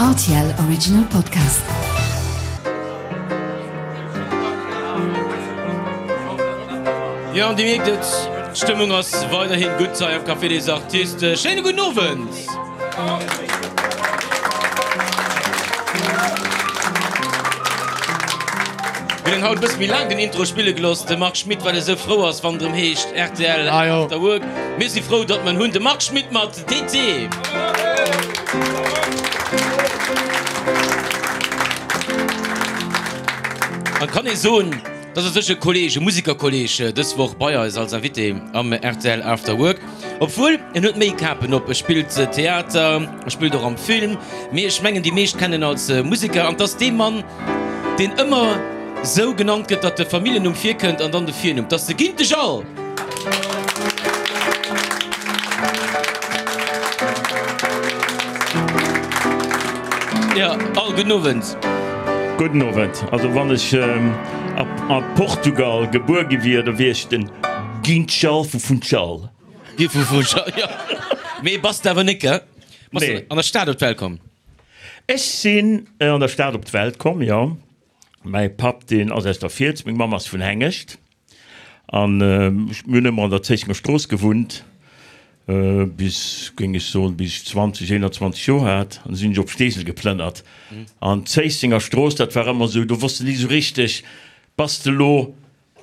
Rtl Original Podcast. Jo, an Dir mierkt et, d'Stëmmung ass weiderhin gutt hei am Café des Artistes. Schéine gudden Owend! Mir hunn haut e bësse méi laang den Intro spille gelooss, de Marc Schmitt, well e sou frou ass, wann et erëm heescht rtl After Work. Mir si frou, datt mer en hunn, de Marc Schmitt mat TT. An et kann ee soen, dass u sech e Kolleeg, e Musikerkolleeg dës Woch bei eis als Invité am rtl After Work. Obwuel, en huet méi Kapen op, e spillt Theater, e spillt och am Film, mee ech mengen déi meescht kennen en als Museker. An 't ass dee Mann, deen ëmmer sou genannt gëtt, datt de Familljennumm virkënnt an dann de Virnumm. 't ass de Gintesch Al! Jo, Al, gudden Owend. Gudden Owend. Also wann ech a Portugal gebuer gi wier, da wier ech den Guinchal vu Funchal. Gi vu Funchal, jo. Mee bass de awer net, gell? Bass de an der Stad op d'Welt komm? Ech sinn an der Stad op d'Welt komm, jo. Mäi Papp, deen ass aus der Fiels, meng Mamm ass vun Hengescht. An mir hunn ëmmer an der Zéissenger Strooss gewunnt, bis, géing ech soen, bis ech 20, 21 Joer hat. An da sinn ech op Steesel geplënnert. An d'Zéissenger Strooss, dat war ëmmer esou, do wosst de ni esou richteg, bass de elo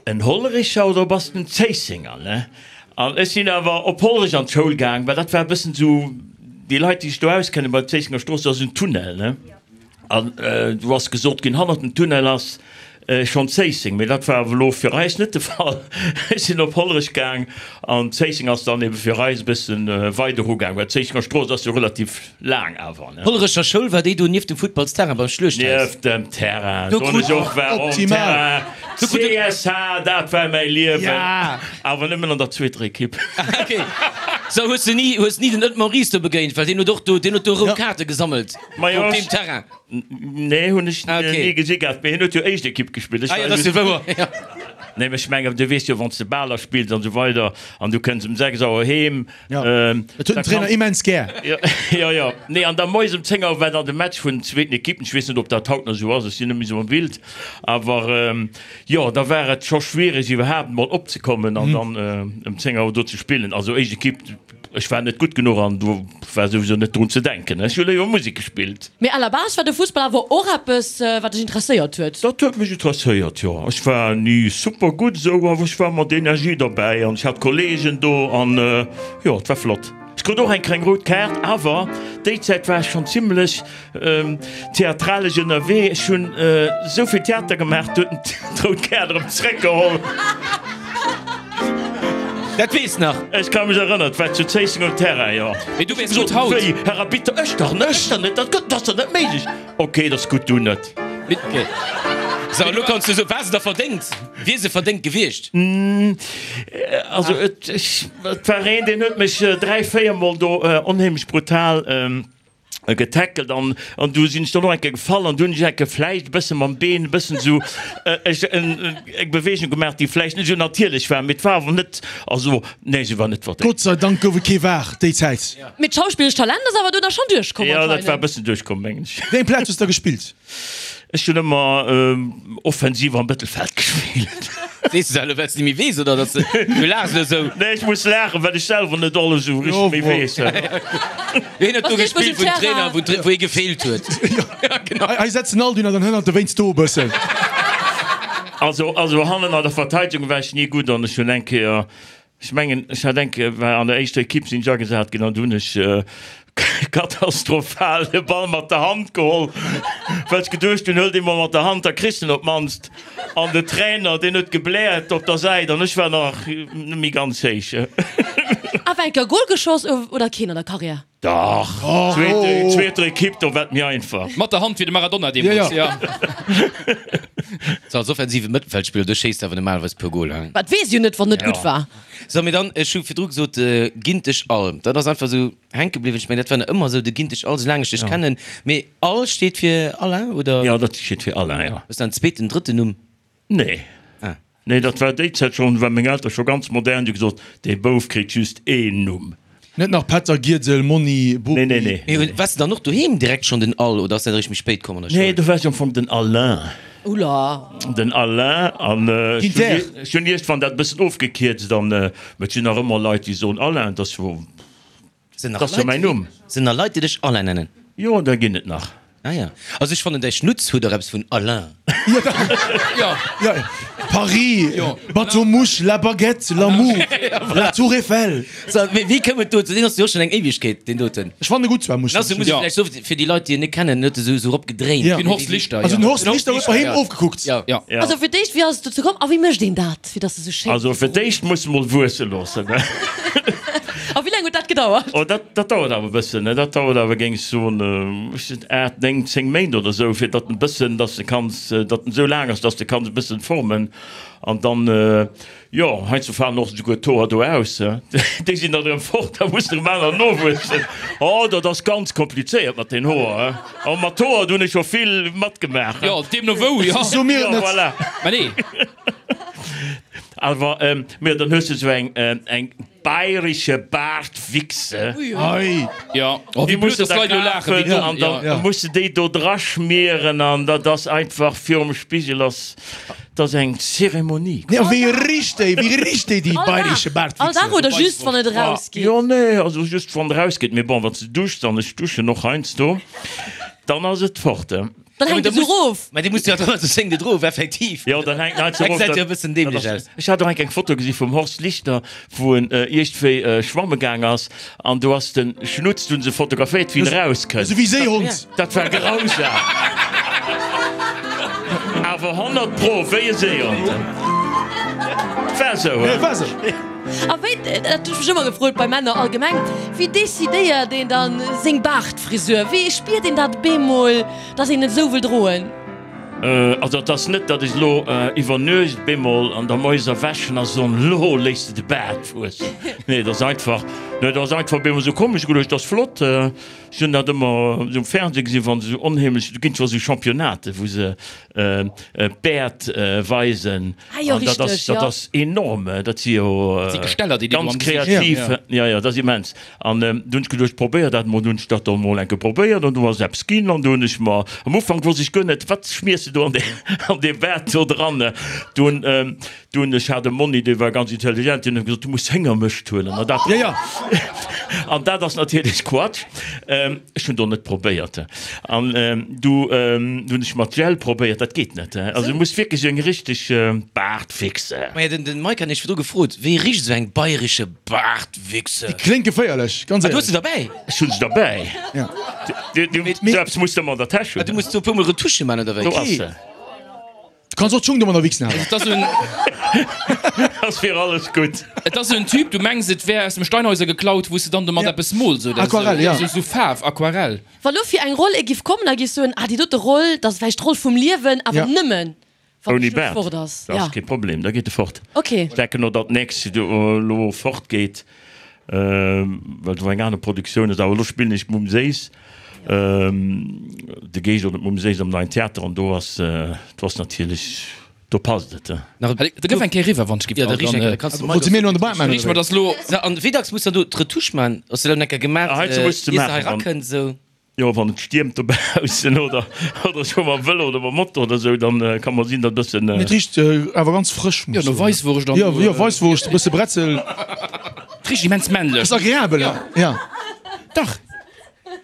En Hollerecher oder bass de en Zéissenger, ne? An ech sinn awer op Hollerech an d'Schoul gaang, well dat war e bëssen esou, déi Leit, déi sech do auskennen, bei der Zéissenger Strooss, do ass en Tunnel, ne? An do ass gesot ginn, hannert dem Tunnel ass schonn Zéisseng, mee dat war awer elo fir eis net de Fall. Ech sinn op Hollerech gaang an Zéisseng ass dann ebe fir eis e bësse weider ugaang, well d'Zéissenger Strooss ass jo relativ laang awer, ne? Hollerecher Schoul, war déi do nieft dem Futtballsterrain beim Schluechthaus? Nieft dem Terrain, do hunn ech och war um Terrain. CSH, dat war mäi Liewen, awer nëmmen an der zweeter Ekipp. Ok, sou hues de ni, hues ni den Ed Maurice do begéint, well deen huet och do, deen huet do rout Kaarte gesammelt op deem Terrain. Nee, hunn ech ni gesi gehat, mee hien huet jo éischt Ekipp gespillt. Ah jo, dat ass jo wouer, jo. Nee, mee ech mengen, du weess jo, wann s de Baler spills an esou weider an du kënns um 6 Auer heem, Jo, dat huet den Trainer immens gär. Jo, jo. Nee, an da moies um 10 Auer war dann de Match vun den zweeten Ekippen. Ech weess net, ob dat haut nach esou ass, ech sinn net méi esou am Bild. Awer jo, da war et scho schwiereg, iwwerhaapt emol opzekommen an dann ëm 10 Auer do ze spillen. Also éischt Ekipp, ech war net gutt genuch an do war souwisou net drun ze denken. Ech hu léiwer Musek gespillt. Mee à la base war de Fussball awer och eppes, wat dech interesséiert huet? Dat huet mech interesséiert, jo. Ech war ni super gutt esou, awer ech war mat Energie derbäi an ech hat Kolleegen do an jo, et war flott. Ech krut och eng kleng rout Kaart, awer déi Zäit war ech schonn zimmlech Theatralesch ënnerwee. Ech hunn esou vill Theater gemaach, do huet en d'rout Kaart erëm zeréckgeholl. Dat weess nach. Ech ka mech erënneren, et war zu Zéisseng um Terrain, jo. Mee du weess gutt haut. Wéi, Herr Arbitter, ech dach net, ech dach net, dat gëtt, dat ass dach net méiglech. Ok, dat ass gutt, du net. Ok. Sou, elo kanns du soen, war se da verdéngt? Wier se verdéngt gewiescht? Also, et, ech, et war een, deen huet mech 3, 4 Mol do onheemlech brutal getackelt an an du sinn ech dann och eng Kéier gefall an du hunn ech eng Kéier vläicht e bësse mam Been e bëssen esou ech eng Beweegung gemaach, déi vläicht net esou natierlech war, mee et war awer net, also nee, se war net verdéngt. Gott sei Dank gouf et kee VAR déi Zäit. Mee d'schauspillesch Talent ass awer do da schonn duerchkomm Jo, dat war e bëssen duerchkomm, mengen ech. Wéi eng Plaz hues de da gespillt? Ech hunn ëmmer offensiv am Mëttelfeld gespillt. Sees de dat elo well s de méi weess oder dass du laachs elo esou? Nee, ech muss laachen, well ech selwer net alles esou richteg méi weess. Hien huet do gespillt wou den Trainer, wou hie gefeelt huet. Hei setzen all dunner dann hënnert dowéinst do e bëssen. Also, also hannen an der Verteidegung war ech ni gutt an ech hunn eng Kéier Ech mengen, ech hat eng Kéier, war an der éischter Ekipp sinn ech agesat ginn an du hunn ech katastrophal de Ball mat der Hand geholl, well ech geduecht hunn, huel dee mol mat der Hand, da kriss de en op d'mannst. An de Trainer, deen huet gebläert op der Säit an ech war nach net méi ganz héich. Awer eng Kéier Gol geschoss oder keen an der Karriär? Dach, zweeter Ekipp, do war et méi einfach. Mat der Hand wéi de Maradona deemools, jo. Sou als offensive Mëttelfeldspiller, do schéisst awer normalerweis puer Goler, hein? Dat weess jo net, wann net gutt war. Sou, mee dann, ech hu virdru gesot, Gintesch All, dat ass einfach esou hänke bliwwen. Ech mengen, dat war nach ëmmer esou, de Gintesch All, soulaang ech dech kennen. Mee All steet fir Alain, oder? Jo, dat steet fir Alain, jo. Hues de en zweeten, drëtten Numm? Nee. Ah. Nee, dat war déi Zäit schonn, war meng Eltere scho ganz modern, déi hu gesot, dee Bouf kritt just een Numm. Net nach Pätter, Giedel, Monni, Bopi. Nee, nee, nee. Mee waars de dann och doheem direkt schonn den Al oder ass dat eréischt méi spéit komm an der Schoul? Nee, do war ech am Fong den Alain. Oula. Den Alain an ech Ginter. hunn iergendwann dat e bëssen ofgekierzt an et sinn nach ëmmer Leit, déi soen Alain, dat ass jo. Sinn nach Dat ass jo Leit, mäin Numm. sinn nach Leit, déi dech Alain nennen? Jo, der ginn et nach. Ah ja. Also ech fannen däi Schnutz huet och eppes vun Alain. Jo. Ja, Paris, Jo. Bateau Mouche, La Baguette, L'amour, La Tour Eiffel. So, mee wéi koum et dozou? Deen ass jo och schonn eng Éiwegkeet, deen doten. Ech fannen e gutt zwar, muss Den ass jo, muss ech vläicht soen, fir déi Leit, déi en net kennen, huet e sou sou eropgedréint. Ja. Den Horst Lichter, Also ja. den Horst Lichter huet bei him ofgekuckt. Ja. Ja. Ja. Also fir d'éischt, wéi ass et dozou komm a wéi mécht een dat, fir dass e sou schéin. Also fir d'éischt muss mol wuesse loossen. A wéi laang huet dat gedauert? Oh, dat, dat dauert awer e bëssen, ne? Dat dauert awer, géing ech soen, ech sinn 8, 9, 10 Méint oder esou, fir datt en bëssen, datt de kanns, datt en esou laang ass, datt de kanns e bëssen formen. An dann, jo, heiansdo falen och esouguer d'Hoer do aus, déi sinn dann erëm fort, da mussen erëm aner nowuessen. Oh, dat ass ganz komplizéiert mat den Hoer, he. Oh, mat Hoer, do hunn ech scho vill matgemaach, he. Jo, deemno wou, jo. So mir et Jo, net. voilà. Mä nee. Awer, mä dann hues de esou eng, eng Bayrische Bartwichse. Ei. Ja. Oh, Déi wéi blöd, muss de dass da d'Leit elo laachen, wéi kafen domm. an dann Ja. muss de déi do dra schmieren an dat ass einfach virum Spigel ass, dat ass eng Zeremonie. Nee, a wéi richt déi, wéi richt déi, déi All Dag? bayrische All Dag Bartwichse? oder just wann et erausgeet? Jo, nee, also just wann et erausgeet. Mee bon, wann s de duschs, an ech duschen och heiansdo, dann ass et fort. Dann hänkt et esou erof. Mä dee muss jo dann also seng net erof, effektiv. Jo, dann hänkt en Dat erof. gesäit jo e bëssen dämlech aus. Ech hat och eng eng Foto gesi vum Horst Lichter, wou en iergendwéi schwamme gaang ass an do ass de Schnutz, do hunn se fotograféiert, wéi en erauskënnt. Esou wéi Séihond. Dat war grausam. Awer 100 pro wéi e Séihond. War esou, he? War esou. A wéi, dat hunn ech mech ëmmer gefrot bei Männer allgemeng, wéi decidéiert een dann seng Baartfrisur? Wéi spiert een dat bemol, dass een et esou wëll droen? Also et ass net, datt ech elo iwwer Nuecht bemol an der Moies erwächen a soen, elo léiss de de Baart wuessen. Nee, et ass einfach, nee, et ass einfach bemol esou komm. Ech hu geduecht, dat ass flott. Ech hunn dat ëmmer esou um Fernseh gesinn, wa se esou onheemlech, do ginn zwar esou Championnaten, wou se d'Bäert weisen. Ah jo, An dat ass, richteg, dat jo. ass enorm. Dat si jo Dat si Gesteller, déi déi do ganz am Gesicht. kreativ. Ja, ja, dat ass immens. An du hunn ech geduecht, probéier dat mol. Du hunn ech dat dann mol eng Kéier probéiert an du ass eppes ginn. An du hunn ech mer, am Ufank wosst ech guer net, wat schmiers de do an dee, an dee Baart do dran. Du hunn, du hunn, ech hat e Monni, dee war ganz intelligent, deen huet gesot, du muss Héngermëscht huelen. An dat, Ja, ja. an dat ass natierlech Quatsch. Ech hunn do net probéiert. An du hunn ech mat Gel probéiert, dat geet net. Also du muss wierklech eng richteg Baartwichse. Maja, den, den Mike hat nämlech virdru gefrot, wéi richt esou eng bayrische Baartwichse? Déi kléngt geféierlech, ganz Ah, du hues éierlech. se derbäi? Ech hunn se derbäi. Ja. Du, du, sou eppes muss de ëmmer an der Täsch Ah, hunn. du muss do e puermol Retusche man, oder wéi? Do ass se. Du kanns och d'Schung domadder wichsen awer. Et ass en. Ass fir alles gutt. Et ass en Typ, du mengs et wär aus dem Steinhäuser geklaut, wou s de dann domat Ja. eppes mools oder esou. Aquarell, ja. Esou, esou Faarf, Aquarell. Wa lo fir eng Roll ee giff kommen a giff soen, ah déi dote Roll, dat ass vläicht d'Roll vum Liewen, awer Ja. nëmmen wann de Ouni Schluss Baart, fort ass. dat Ja. ass kee Problem, da geet e fort. Okay. Ech denken och, datt d'nächst elo fort geet, well do eng aner Produktioun ass. Awer elo spillen ech d'Mumm Séiss, de Geescht oder d'Mumm Séiss am Neien Theater an do ass, do ass natierlech, do passt et. Nach Da gëff eng Kéier eriwwer, wann ech giff. Ja, da riech eng Kéier, da kanns de Wollt se mir elo an de Baart maachen, Riech mer oder dass elo. So, an wéi dacks muss dann do d'Retouche man? Hues de dat eng Kéier gemaach, Ah, heizou muss de ier se hei maachen, wann. rakënnt, esou? Jo, wann et stiermt dobaussen oder oder ech fuer mam Vëlo oder mam Moto oder sou, dann ka mer sinn, datt e bëssen. Et richt awer ganz frësch, muss Jo, no soen. Weisswurscht an. Jo, jo, Weisswurscht, e bësse Bretzel. Et richt immens männlech. Ass agreabel, ja. Dach.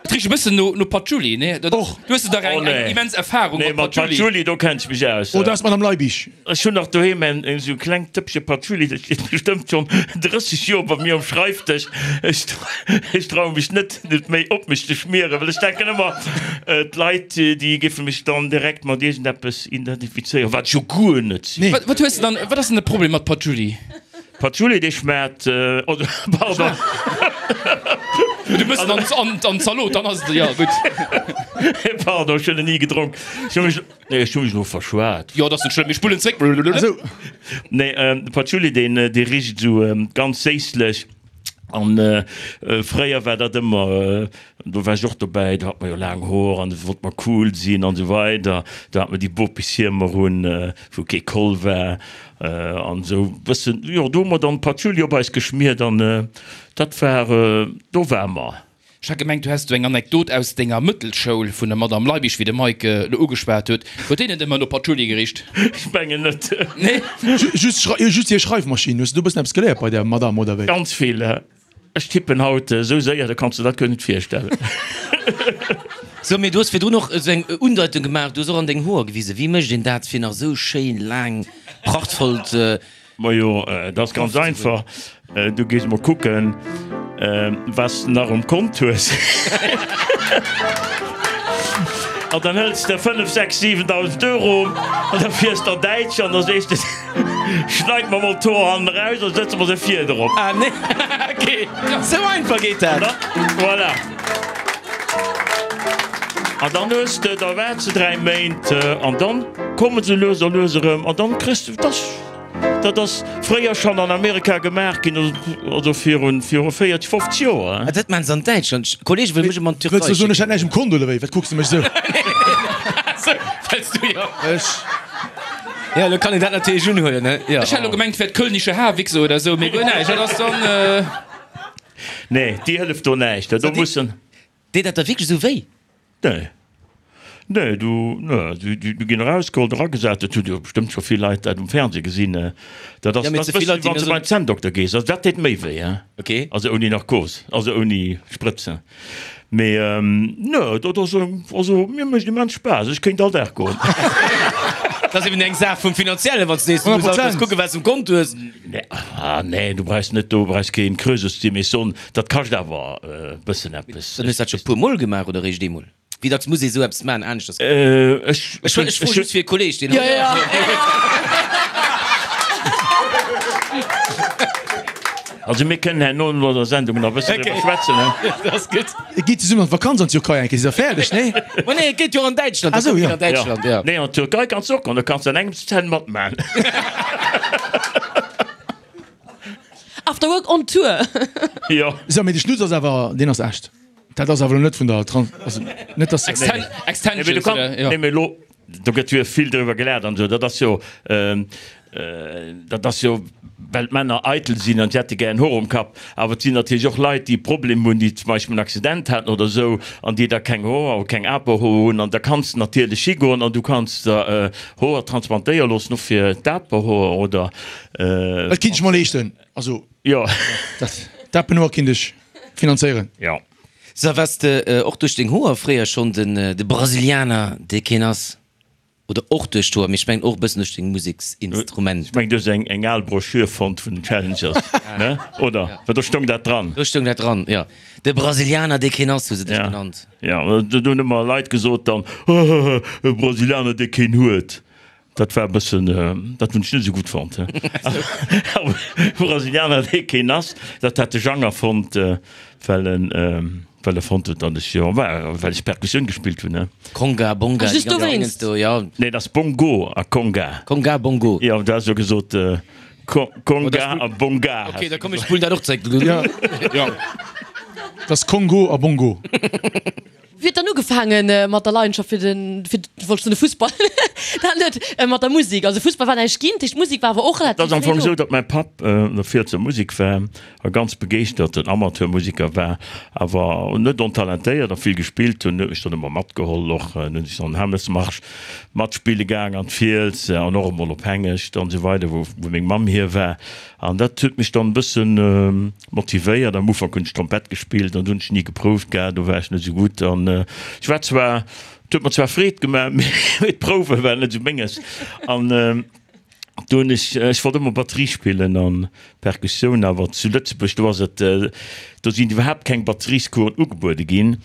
Et richt e bëssen no no Patchouli, nee? Dat, Och. Du hues dach eng Oh, nee. eng immens Erfahrung Nee, mat mat Patchouli. Patchouli, do kenn ech mech aus. Oh, dat ass d'Madame Leibig. Ech hunn nach doheem en esou klengt Dëppche Patchouli, dat steet bestëmmt schonn 30 Joer bei mir um Schreifdësch. Ech ech traue mech net, et méi op mech ze schmieren, well ech denken ëmmer, d'Leit, déi géife mech dann direkt mat iergendeppes identifizéieren, wat ech jo guer net sinn. Nee. Wat, wat hues de dann, wat ass denn de Problem mat Patchouli? Patchouli, dee schmaacht, oh, pardon. Du mëss en an, an, an d'Zalot, dann ass et, jo, gutt. Pardon, ech hunn en ni gedronk. Ech hu mech. Nee, ech hu mech elo verschwat. Jo, dat ass net schlëmm, mir spullen zréck. Esou. Nee, de Patchouli, deen, dee richt esou ganz séisslech. An fréier war dat ëmmer, do war ech och dobäi, do hat mer jo laang Hoer an do wollt mer cool sinn an esou weider. Do hat mer déi Bopishiemer un, wou kee Col war an esou bëssen, jo do hu mer dann Patchouli op eis geschmiert an dat war, do war mer. Ech hat gemengt, du häss do eng Anekdot aus denger Mëttelschoul vun der Madame Leibig, wéi de Mike elo ugeschwat huet. Huet déi net ëmmer no Patchouli gericht? Ech mengen net. Nee? Just just hir Schreifmaschinn. Hues du do e bëssen eppes geléiert bei der Madame, oder wéi? Ganz vill. Ech tippen haut esou séier, da kanns de dat guer net virstellen. So, mee du hues virdrun och esou eng Undeitung gemaach, du hues och an deng Hoer gewisen. Wéi mécht een dat, fir nach esou schéin laang, prachtvollt Majo, dat ass ganz einfach, du gees mol kucken, wat s de nach um Kont hues. An dann hëls de 5, 6, 7.000 Euro an da fiers de an Däitschland an da sees de, Schneit mer mol d'Hoer hannen eraus a sëtze mer se vir drop. Ah nee, ok, sou einfach geet dat. Voilà. An dann hues de, da waarts de 3 Méint an dann komme se lues a lues erëm an dann kriss de, dass. Dat ass fréier schonn an Amerika gemaach ginn, also virun viru 40, 50 Joer. Ah, dat maachen se an Däitschland. Kollege wëll mech ëmmer an d'Türkei Wëlls du soen, ech hätt näischt um Konto oder wéi? Wat kucks de mech esou? Wëlls du jo. Ech. Ja, elo kann een dat natierlech unhuelen, ne? Jo. Ech hat elo gemengt, et wär d'Kölnische Haarwichse oder esou, mee guer näischt. Dat ass dann. Nee, déi hëlleft do näischt. Do mussen. Deet dat da wierklech esou wéi? Nee. Nee, du, nee, du, du, du ginn erausgeholl, eragesat. Dat hutt jo bestëmmt scho vill Leit dat um Fernseh gesinn. Dat ass, Ja, mee dat ze vill ass Leit, déi wann s mir de beim Zänndokter gees. Also dat deet méi wéi, hein. Ok. Also ouni Narkos, also ouni Sprëtzen. Mee nee, dat ass, also mir mécht immens Spaass. Ech kéint all Dag goen. Dat ass eben eng Saach vum Finanziellen, wann s de nees du muss alt nees 100%. kucken, wat s de um Kont hues. Nee, ah nee, du brauchs net, du brauchs keen Krösus ze sinn, mee soen, dat kascht awer e bëssen eppes. Dann hues du dat scho puer Mol gemaach oder eréischt eemol? Wéi dacks muss ee sou eppes maachen aneschters? Ech Ech ech froe just fir e Kolleg, deen. Ja, ja. Also mir kënnen herno no der Sendung nach e bëssen driwwer schwätzen, he? Dat ass gutt. Et geet zesummen an d'Vakanz an d'Türkei eng Kéier, si se fäerdeg, nee? Ma nee, et geet jo an Däitschland. Ah sou, ja. An Däitschland, ja. Nee, an d'Türkei kanns de och goen, do kanns de an engems d'Zänn matmachen. After Work on Tour. Jo. Sou, mee de Schnutz ass awer, deen ass echt. Dat ass awer elo net vun der Trans, also net dass. Exten Nee, mee du Extensions, kann, oder? Jo. nee, mee elo, do gëtt jo vill driwwer gelaacht an esou, dat ass jo, dat ass jo, well d'Männer eitel sinn an si hätte gär en Hoer um Kapp. Awer et sinn natierlech och Leit, déi e Problem hunn, déi zum Beispill en Accident haten oder esou an déi da keng Hoer oder keng Aperhoer hunn. An da kanns de natierlech higoen an du kanns der Hoer transplantéiere loossen, och fir d'Aperhoer oder. Dat kinnt ech mer leeschten. Also, Jo. dat d'Apenhoer kinnt ech finanzéieren. Jo. So, waars de och duerch deng Hoer fréier schonn den de Brasilianer, dee keen ass? Oder och duerch d'Hoer, mee ech mengen och e bëssen duerch deng Museksinstrumenter. Ech mengen, du hues eng eng al Broschür fonnt vun den Challengers, ne? Oder? Well do stoung dat dran. Do stoung dat dran, jo. De Brasilianer, dee keen ass, hu se dech genannt. Jo, do hunn ëmmer Leit gesot dann, Hahaha, e Brasilianer, dee keen huet. Dat war e bëssen, dat hunn ech net esou gutt fonnt. Awer Brasilianer, dee keen ass, dat hat de Jang erfonnt, well en, well e fonnt huet, datt ech jo, well ech Perkussioun gespillt hunn, ne. Conga, Bonga, Ah, déi just ganz dowéinst. Dingens do, jo. Nee, dat ass Bongo a Conga. Conga, Bongo. Jo, du has jo gesot Conga a Bonga. Ok, da komm, ech spullen dat och zréck. Jo, dat ass Kongo a Bongo. Wéi huet dann ugefaange mat der Leidenschaft fir den, fir, wollt ech soen de Fussball, dat net, mat der Musek? Also Fussball war näischt ginn, dat heescht d'Musek war awer och Et relativ ass am fréi Fong do. esou, datt mäi Papp an der Fielser Musek war a ganz begeeschterten Amateurmusiker war, awer net ontalentéiert a vill gespillt hunn. Huet mech dann ëmmer matgeholl och. Dann hunn ech dann Hämmelsmarsch matspille gaang an d'Fiels an och emol op Hengescht an esou weider, wou meng Mamm hier war. An dat huet mech dann e bëssen motivéiert. Am Ufank hunn ech Trompett gespillt an do hunn ech ni geprouft gehat, do war ech net esou gutt. An ech war zwar, et huet mer zwar Freed gemaach, mee d'Prouwe waren net esou menges. An do hunn ech, ech wollt ëmmer Batterie spillen an Perkussioun, awer zu Lëtzebuerg, do ass et, do sinn iwwerhaapt keng Batteriescoursen ugebuede ginn,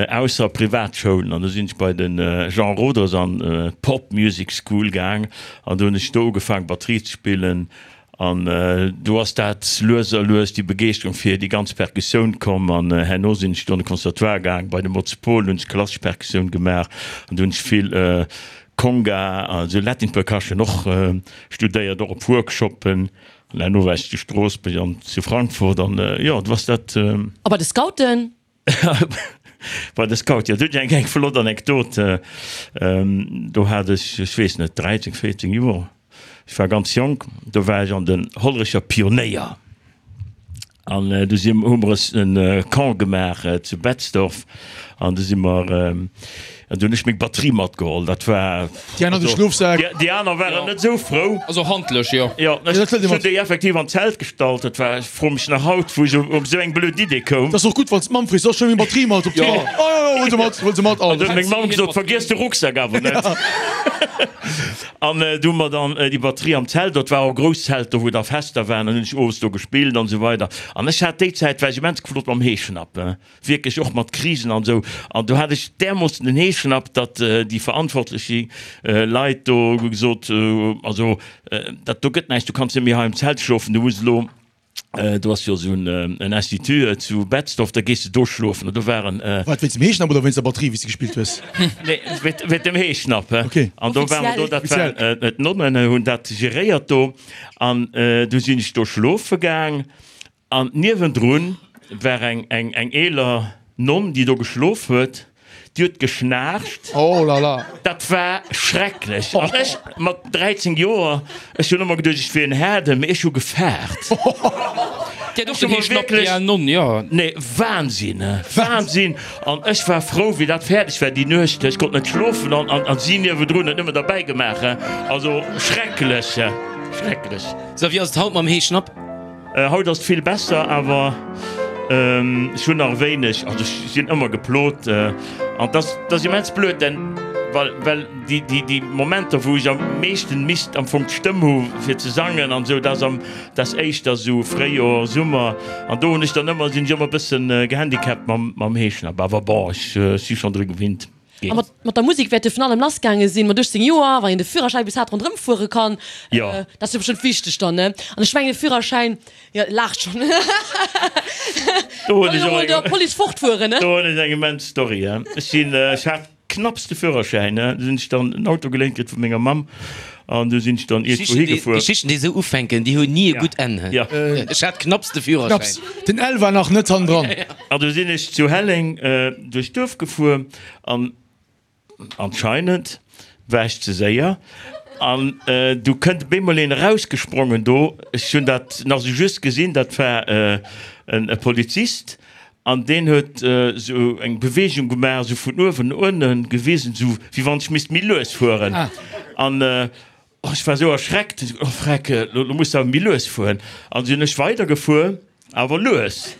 ausser Privatschoulen. An do sinn ech bei de Jean Roders an d'Pop Music School gaang an do hunn ech do ugefaang Batterie ze spillen. An do ass dat lues a lues déi Begeeschterung fir déi ganz Perkussioun komm. An herno sinn ech do an de Conservatoire gaang, bei de Motz Paul hunn ech klassesch Perkussioun gemaach an do hunn ech vill Conga, also Latin Percussion och studéiert, och op Workshoppen. An herno war ech zu Stroossbuerg an zu Frankfurt an jo, du ass dat. A bei de Scouten? Bei de Scouten, jo, do hunn ech eng flott Anekdot. Do hat ech, ech weess net, 13, 14 Joer, ech war ganz jonk, do war ech an den Hollerecher Pionéier. An du si hu mer es e Camp gemaach zu Betzdorf an du si mer, an du hunn ech meng Batterie matgeholl. Dat war. Déi aner de Schlofsak. Déi aner waren net esou frou. Also handlech, jo. Jo, ech hunn déi effektiv an d'Zelt gestallt. Dat war, ech froe mech nach haut, wou ech op esou eng blöd Idee koum. Dat ass och gutt, wann s d'Mamm freet, Soll ech meng Batterie mat op d'Tour? Jo, jo, jo, huel se mat, huel se mat. An du huet meng Mamm gesot, Vergiess de Rucksak awer net. An du hu mer dann déi Batterie am Zelt, dat war och e grousst Zelt do, wou da Fester waren, an hunn ech owes do gespillt an esou weider. An ech hat déi Zäit, war ech immens geflott mam Heeschnapp, wierklech och mat Krisen an esou. An do hat ech därmoossen den Heeschnapp, datt déi verantwortlech Leit do gesot, also dat do gëtt näischt, du kanns net méi hei am Zelt schlofen, du muss elo Do ass jo esou en Institut zu Betzdorf, da gees de do schlofen. An do waren. Wat, wéinst dem Heeschnapp oder wéinst der Batterie, wéi s de gespillt hues? Nee, wéint dem Heeschnapp. Okay. An do ware mer do, dat waren d'Nonnen hunn dat geréiert do. An du sinn ech do schlofe gaang an niewendrun war eng eeler Nonn, déi do geschlof huet. Déi huet geschnaarcht. Oh la la. Dat war schrecklech. An ech mat 13 Joer, ech hunn ëmmer geduecht, ech wier en Haarden, mee ech hu gefaart. Déi hat och den Heeschnapp, déi al Nonn, jo. Nee, Wahnsinn, Wahnsinn. An ech war frou, wéi dat fäerdeg war déi Nuecht. Ech konnt net schlofen an, an si niewendrun huet nëmmen derbäi gemaach. Also schrecklech, schrecklech. Sou, wéi ass et haut mam Heeschnapp? Haut ass et vill besser, awer ech hunn nach e wéineg, also ech sinn ëmmer geplot an dat ass immens blöd, denn well well déi déi déi Momenter wou ech am meeschten misst am Fong d'Stëmm hu fir ze sangen an esou, dat ass am dat ass éischter esou Fréijoer, Summer an do hunn ech dann ëmmer sinn ech ëmmer e bëssen gehandicapt mam mam Heeschnapp, awer bon ech si schonn dru gewinnt. A mat, mat der Musek wäert jo vun allem lass gaange sinn, mat 18 Joer, wann een de Führerschäin bis hat ronderëm fuere kann. Jo. Dat ass jo bestëmmt wichteg dann, ne? An ech mengen de Führerschäin, jo, laacht schonn. Do hunn Kann ech jo och mol eng, der Police fortfueren, ne? do hunn ech eng immens Story, he. Ech sinn, ech hat knapps de Führerschäin, ne, du sinn ech dann en Auto geléint kritt vu menger Mamm an du sinn ech dann iergendwou higefuer. Geschichten, déi esou ufänken, déi hunn ni e gutt Enn, he. Jo. Ech hat knapps de Führerschäin. Knapps. Den L war nach net hannendran. An du sinn ech zu Helleng duerch d'Duerf gefuer an anscheinend war ech ze séier an du kënnt op eemol een erausgesprongen do. Ech hunn dat nach esou just gesinn, dat war e Polizist an deen huet esou eng Beweegung gemaach, esou vun uewen no ënnen gewisen, esou wéi wann ech misst méi lues fueren. An Oh, ech war sou erschreckt, oh freck, lo muss de awer méi lues fueren. An sinn ech weider gefuer, awer lues.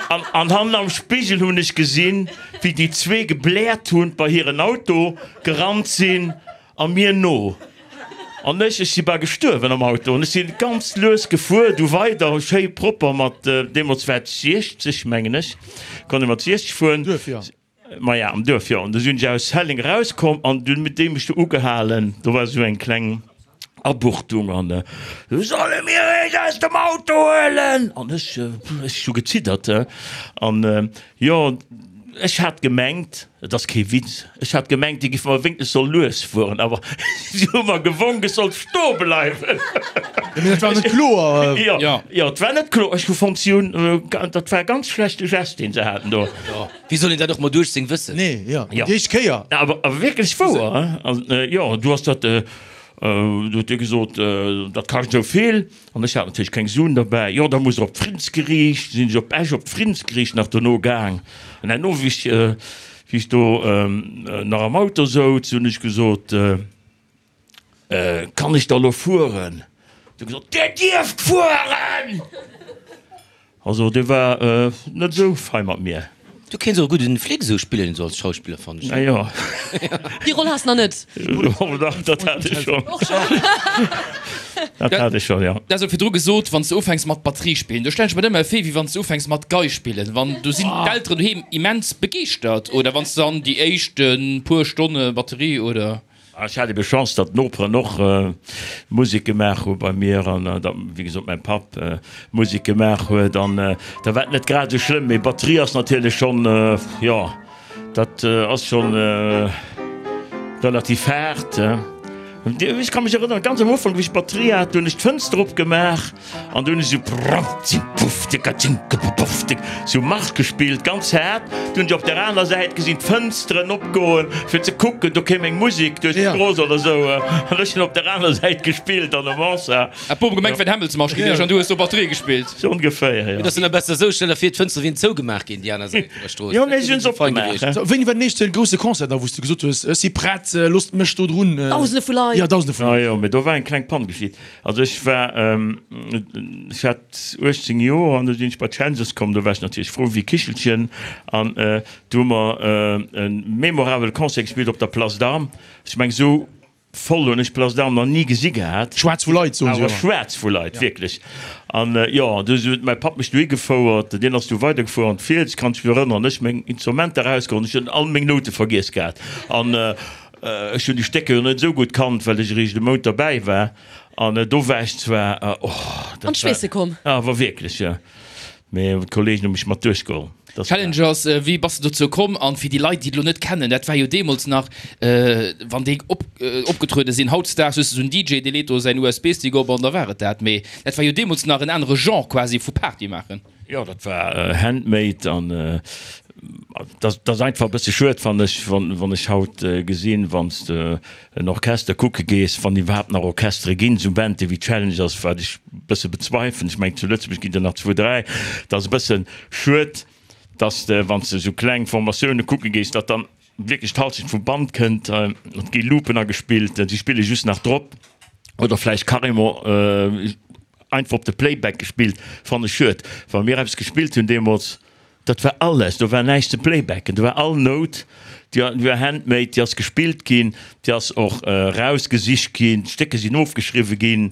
An, an hannen am Spigel hunn ech gesinn, wéi déi zwee gebläert hunn, bei hiren Auto gerannt sinn a mir no. An ech, ech si bal gestuerwen am Auto. An ech si ganz lues gefuer, du weider, schéi propper mat, deemools war et 60, mengen ech, konnt ee mat 60 fueren. Duerf, jo. Maja, am Duerf, jo. An du sinn ech aus Helleng erauskomm an dunn huet dee mech do ugehalen. Do war esou eng kleng Abuchtung an esou, Solle mir iech aus dem Auto huelen? An ech, ech hu geziddert. An jo, ech hat gemengt, et ass kee Witz, ech hat gemengt, déi géife mer wéinstens soll lues fueren, awer si hu mer gewonk, ech sollt stoe bleiwen. Jo, mee dat war net kloer. Jo, jo, et war net kloer. Ech hu fonnt, si hunn, dat war e ganz schlechte Gest, deen se haten do. Wéi soll een dat och mat 18 wëssen? Nee, jo, déi éischt Kéier. Awer wierklech wouer, hein? An jo, du has dat, du huet dee gesot, dat kascht esou vill. An ech hat natierlech keng Suen derbäi. Jo, da muss der op d'Friddensgeriicht. Sinn ech op Esch op d'Friddensgeriicht nach dono gaang. An herno, wéi ech, wéi ech do nach am Auto souz, hunn ech gesot, Kann ech da lo fueren? Huet e gesot, Dir dierft fueren! Also dee war net esou fei mat mir. Du kéints och e gudden Flic esou spillen, esou als Schauspiller, fannen ech. Ah jo. Déi Roll has nach net. Oh dach, dat hat ech schonn. Och schonn. Dat hat ech schonn, jo. Du has jo virdru gesot, wann s de ufänks mat Batterie spillen, do stellen ech mer dat ëmmer vir, wéi wann s de ufänks mat Gei spillen, wann do sinn d'Elteren doheem immens begeeschtert, oder wann s de dann déi éischt puer Stonne Batterie oder. Ech hat ebe Chance, datt d'Noperen och Musek gemaach hu bei mir an datt, wéi gesot, mäi Papp Musek gemaach huet an da war et net grad esou schlëmm. Mee Batterie ass natierlech schonn, jo, dat ass schonn relativ haart. Ech ka mech erënneren, ganz am Ufank, wéi ech d'Batterie hat, do hunn ech d'Fënster opgemaach an do hunn ech esou prrrrzipufftikatschinkepupufftik sou Marsch gespillt, ganz haart. Du hunn ech op der aner Säit gesinn d'Fënsteren opgoen, fir ze kucken, do kéim eng Musek duerch d'Strooss oder sou. An ech hunn op der aner Säit gespillt an der Mansard. Hat d'Bom gemengt, wär d'Hämmelsmarsch gewiescht an du hues do Batterie gespillt. Sou ongeféier, jo. Et ass dann besser esou, stell der vir, d'Fënstere wieren zougemaach ginn, déi aner Säit vun der Strooss. Jo, mee si hunn se opgemaach, he. Sou, wéini war den éischte grousse Concert da, wou s du gesot hues, ech si prett, loosst mech do drun? Dausende vu Leit. Jo, Dausende vu Ah Leit. jo, mee do war eng kleng Pann geschitt. Also ech war, ech hat 18 Joer an du sinn ech bei d'Challengers komm, do war ech natierlech frou wéi Kichelchen an do hu mer e memorabele Concert gespillt op der Place d'Armes. Ech meng esou Voll hunn ech d'Place d'Armes nach ni gesi gehat. Schwaarz vu Leit, soen se jo. Awer schwaarz vu Leit, wierklech. An jo, du huet mäi Papp mech dohi gefouert, deen ass du weidergefuer an d'Fiels, kann ech mech erënneren. Ech meng Instrumenter erausgeholl, ech hunn all meng Noute vergiess gehat. An ech hunn déi Stécker jo net esou gutt kannt, well ech eréischt e Mount derbäi war. An do war ech zwar, oh, dat war. An d'Schweesse komm. Awer wierklech, jo. Mee d'Kollegen hu mech mat duerchgeholl. Challengers, wéi bass de dozou komm? An fir déi Leit, déi et elo net kennen, dat war jo deemools nach, wann déi opgetruede sinn. Hautdesdaags hues de esou en DJ, dee leet do säin USB-Stick op an da war et dat. Mee dat war jo deemools nach en anere Genre quasi vu Party maachen. Jo, dat war handmade an dat ass einfach e bësse schued, fannen ech, wann ech haut gesinn, wann s de en Orchester kucke gees, wann iwwerhaapt nach Orchestere ginn, esou Bande wéi Challengers, wat ech e bësse bezweifelen, ech mengen zu Lëtzebuerg ginn der nach zwou, dräi, dat ass e bësse schued, dass de, wann s de esou kleng Formatioune kucke gees, datt dann wierklech d'Halschent vum Band kënnt, et gi Loopen agespillt, si spille just nach drop oder vläicht carrément einfach op de Playback gespillt, fannen ech schued. Wa mir eppes gespillt hunn deemools, Dat war alles, do war näischt ze playbacken, do war all Nout, déi war handmade, déi ass gespillt ginn, déi ass och erausgesicht ginn, d'Stécker sinn ofgeschriwwe ginn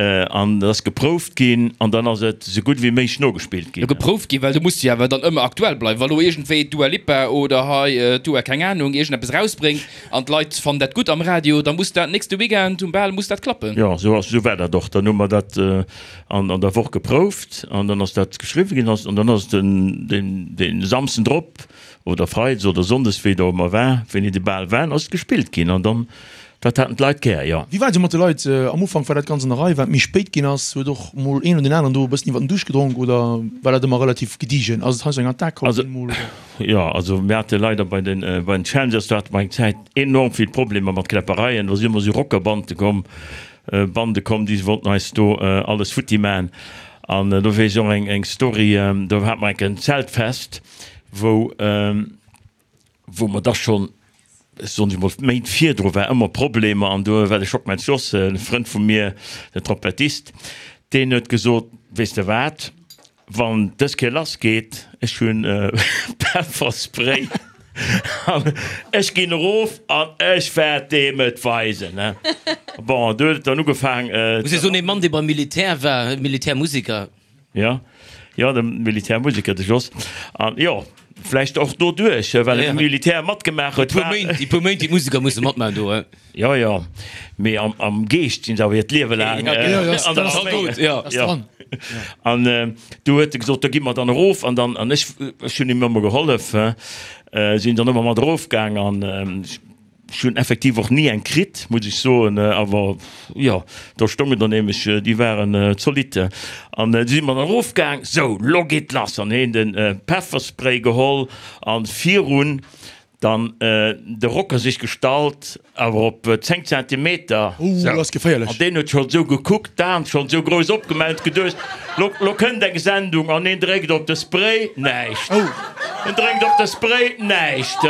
an et ass geprouft ginn an dann ass et esou gutt ewéi méiglech nogespillt ginn. Geprouft ginn, well do muss de jo awer dann ëmmer aktuell bleiwen. Wa lo iergendwéi d'Dua Lipa oder hei d'Dua keng Anung iergendeppes erausbréngt an d'Leit fannen dat gutt am Radio, da muss dat nächste Weekend um Bal muss dat klappen. Jo, esou ass, esou war dat och. Dann hu mer dat an an der Woch geprouft an dann ass dat geschriwwen ginn an dann ass den den den Samsden drop oder Freides oder Sonndes wéi et och ëmmer war, wéini de Bal war, ass et gespillt ginn an dann dat haten d'Leit gär, jo. Wéi war et esou mat de Leit am Ufank? War dat ganz an der Rei? War et méi spéit ginn ass, huet och mol een oder deen aneren do e bëssen iwwer den Duuscht gedronk oder war dat ëmmer relativ gediegen? Ass et hei sou eng Attack komm ginn mol oder? Jo, also mir hate leider bei den bei den Challengers, do hate mer eng Zäit enorm vill Problemer mat Kläppereien, do si ëmmer sou Rockerbande komm, Bande komm, déi wollten eis do alles futti man. An do weess ech och eng eng Story, do hate mer enk en Zeltfest, wou wou mer da schonn, soen ech mol, Méint virdru war ëmmer Problemer an do war de Schockmel Jos, e Frënd vu mir, den Trompettist, deen huet gesot, weess de wat, Wann dës Kéier lass geet, ech hunn Pefferspray an ech ginn erof an ech wäert deem et weisen. Bon, du huet et dann ugefaang. Muss ee soen, ee Mann, dee beim Militär war, Militärmusiker. Jo, jo, de Militärmusiker, de Jos. An jo, vläicht och doduerch, well e Militär matgemaach huet. Déi puer Méint, déi puer Méint, déi d'Musiker musse matmaachen do, he. Jo, jo, mee am Geescht sinn se awer hiert Liewe laang an der Arméi. Jo. An du huet e gesot, da gi mer dann erof. An dann, an ech, ech hunn him ëmmer gehollef, sinn dann ëmmer mat erofgaang an ech hunn effektiv och ni eng kritt, muss ech soen. Awer jo, do stoungen der nämlech, déi waren zolidd. An du si mer dann erofgaang, sou, lo geet lass. An hien de Pefferspray geholl an virun Dann de Rocker sech gestallt, awer op 10 Zentimeter. Ooh, dat ass geféierlech. An deen huet schonn esou gekuckt, d'Aen schonn esou grouss opgemaach, huet geduecht, lo, lo kënnt eng Sendung. An hien dréckt op de Spray, näischt. En dréckt op de Spray, näischt.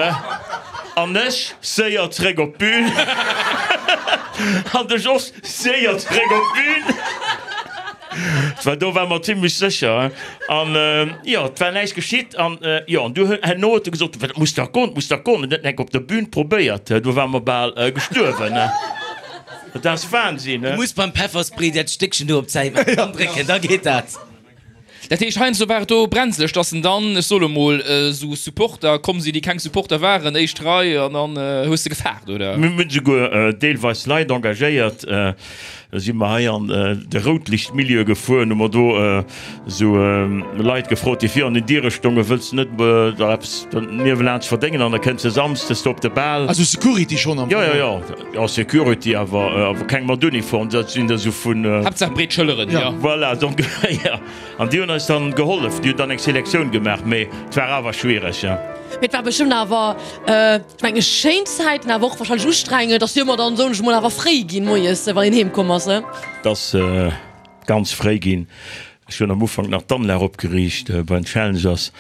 An ech séier zréck op d'Bün. An de Jos séier zréck op d'Bün. Well do ware mer zimlech sécher. An jo, et war näischt geschitt. An jo, an du herno huet e gesot, Dat muss dach goen, dat muss dach goen. En huet enk op der Bühn probéiert, do ware mer bal gestuerwen. Dat ass Wahnsinn. Du muss beim Pefferspray dat Stéckchen do op d'Säit maachen an drécken, da geet dat. Dat heescht, heiansdo war et do brenzeleg, dass en dann, ech soe lo mol, esou Supporter komm sinn, déi keng Supporter waren, éischt Rei, an dann hues de gefaart, oder? Mir hunn souguer deelweis Leit engagéiert. Da si mer hei an de Routlichtmilieu gefuer, hu mer do esou Leit gefrot, déi vir an den Diere stongen, Wëlls de net der eppes niewelaanscht verdéngen an da kënns de samsdes do op de Bal. Also Security schonn am Fong? Jo, jo, jo, jo, Security, awer awer keng mat Uniform, dat sinn der esou vun. Haaptsaach breet Schëlleren, jo. Voilà, donc, jo. An déi hunn eis dann gehollef, déi hunn dann eng Selektioun gemaach, mee et war awer schwiereg, jo. Mee et war bestëmmt awer. Ech mengen schéin Zäiten, awer och wahrscheinlech ustrengend. Et ass jo ëmmer dann, soen ech mol, awer fréi ginn moies, wann een heem komm ass, ne? Et ass ganz fréi ginn. Ech hunn am Ufank nach d'Anlag opgeriicht bei den Challengers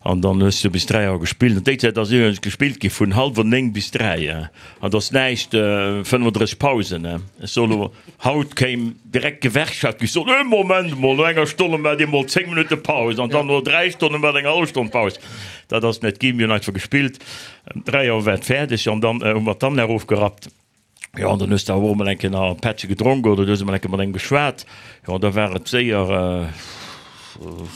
an dann hues du bis 3 Auer gespillt. An déi Zäit ass iwwregens gespillt gi vun hallwer 9 bis 3 an et ass näischt 35 Pausen. Ech soe lo, haut kéim direkt d'Gewerkschaft, géif soen, ee Moment emol, no enger Stonn maacht Dir emol 10 Minutte Paus an dann no 3 Stonne maacht eng hallef Stonn Paus. Dat ass net ginn. Mir hunn einfach gespillt. Ëm 3 Auer war et fäerdeg an dann hu mer d'Anlag ofgerappt. Jo, an dann hues de awer och emol eng Kéier nach e Pättche gedronk oder du hues emol eng Kéier mat engem geschwat. Jo, an da war et séier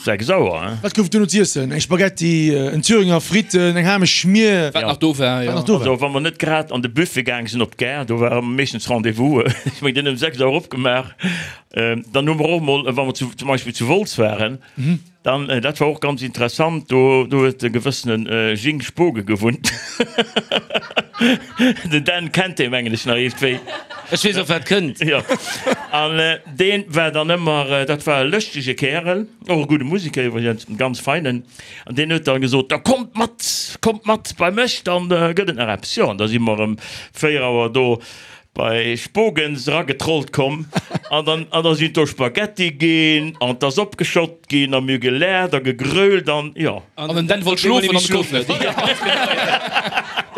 6 Auer, hein. Wat gouf et duerno z'iessen? Eng Spaghetti, en Thüringer, Fritten, eng Hamesch Schmier? Wat nach do war, jo. Wat nach do war. Also, wa mer net grad an de Buffet gaang sinn op d'Gare, do war meeschtens Rendez-vous. Ech mengen, deen huet ëm 6 Auer opgemaach. Dann hu mer och emol, wa mer zu, zum Beispill zu Wolz waren, Dann, dat war och ganz interessant, do do huet e gewëssene Jing Spoge gewunnt. Den Dan kennt dee mengen ech nach iergendwéi. Ech weess och wat kënnt. Jo. An dee war dann ëmmer, dat war e lëschtege Kärel, och e gudde Museker iwwregens, e ganz feinen. An deen huet dann gesot, Da kommt mat, kommt mat bei mech, dann gëtt et nach eppes. Jo, an da si mer ëm 4 Auer do Bei Spogens eragetrollt komm an dann an da sinn do Spaghetti ginn an 't ass opgeschott ginn a mir hu gelaacht a gegrölt an jo. An den Dan wollt schlofen an konnt net.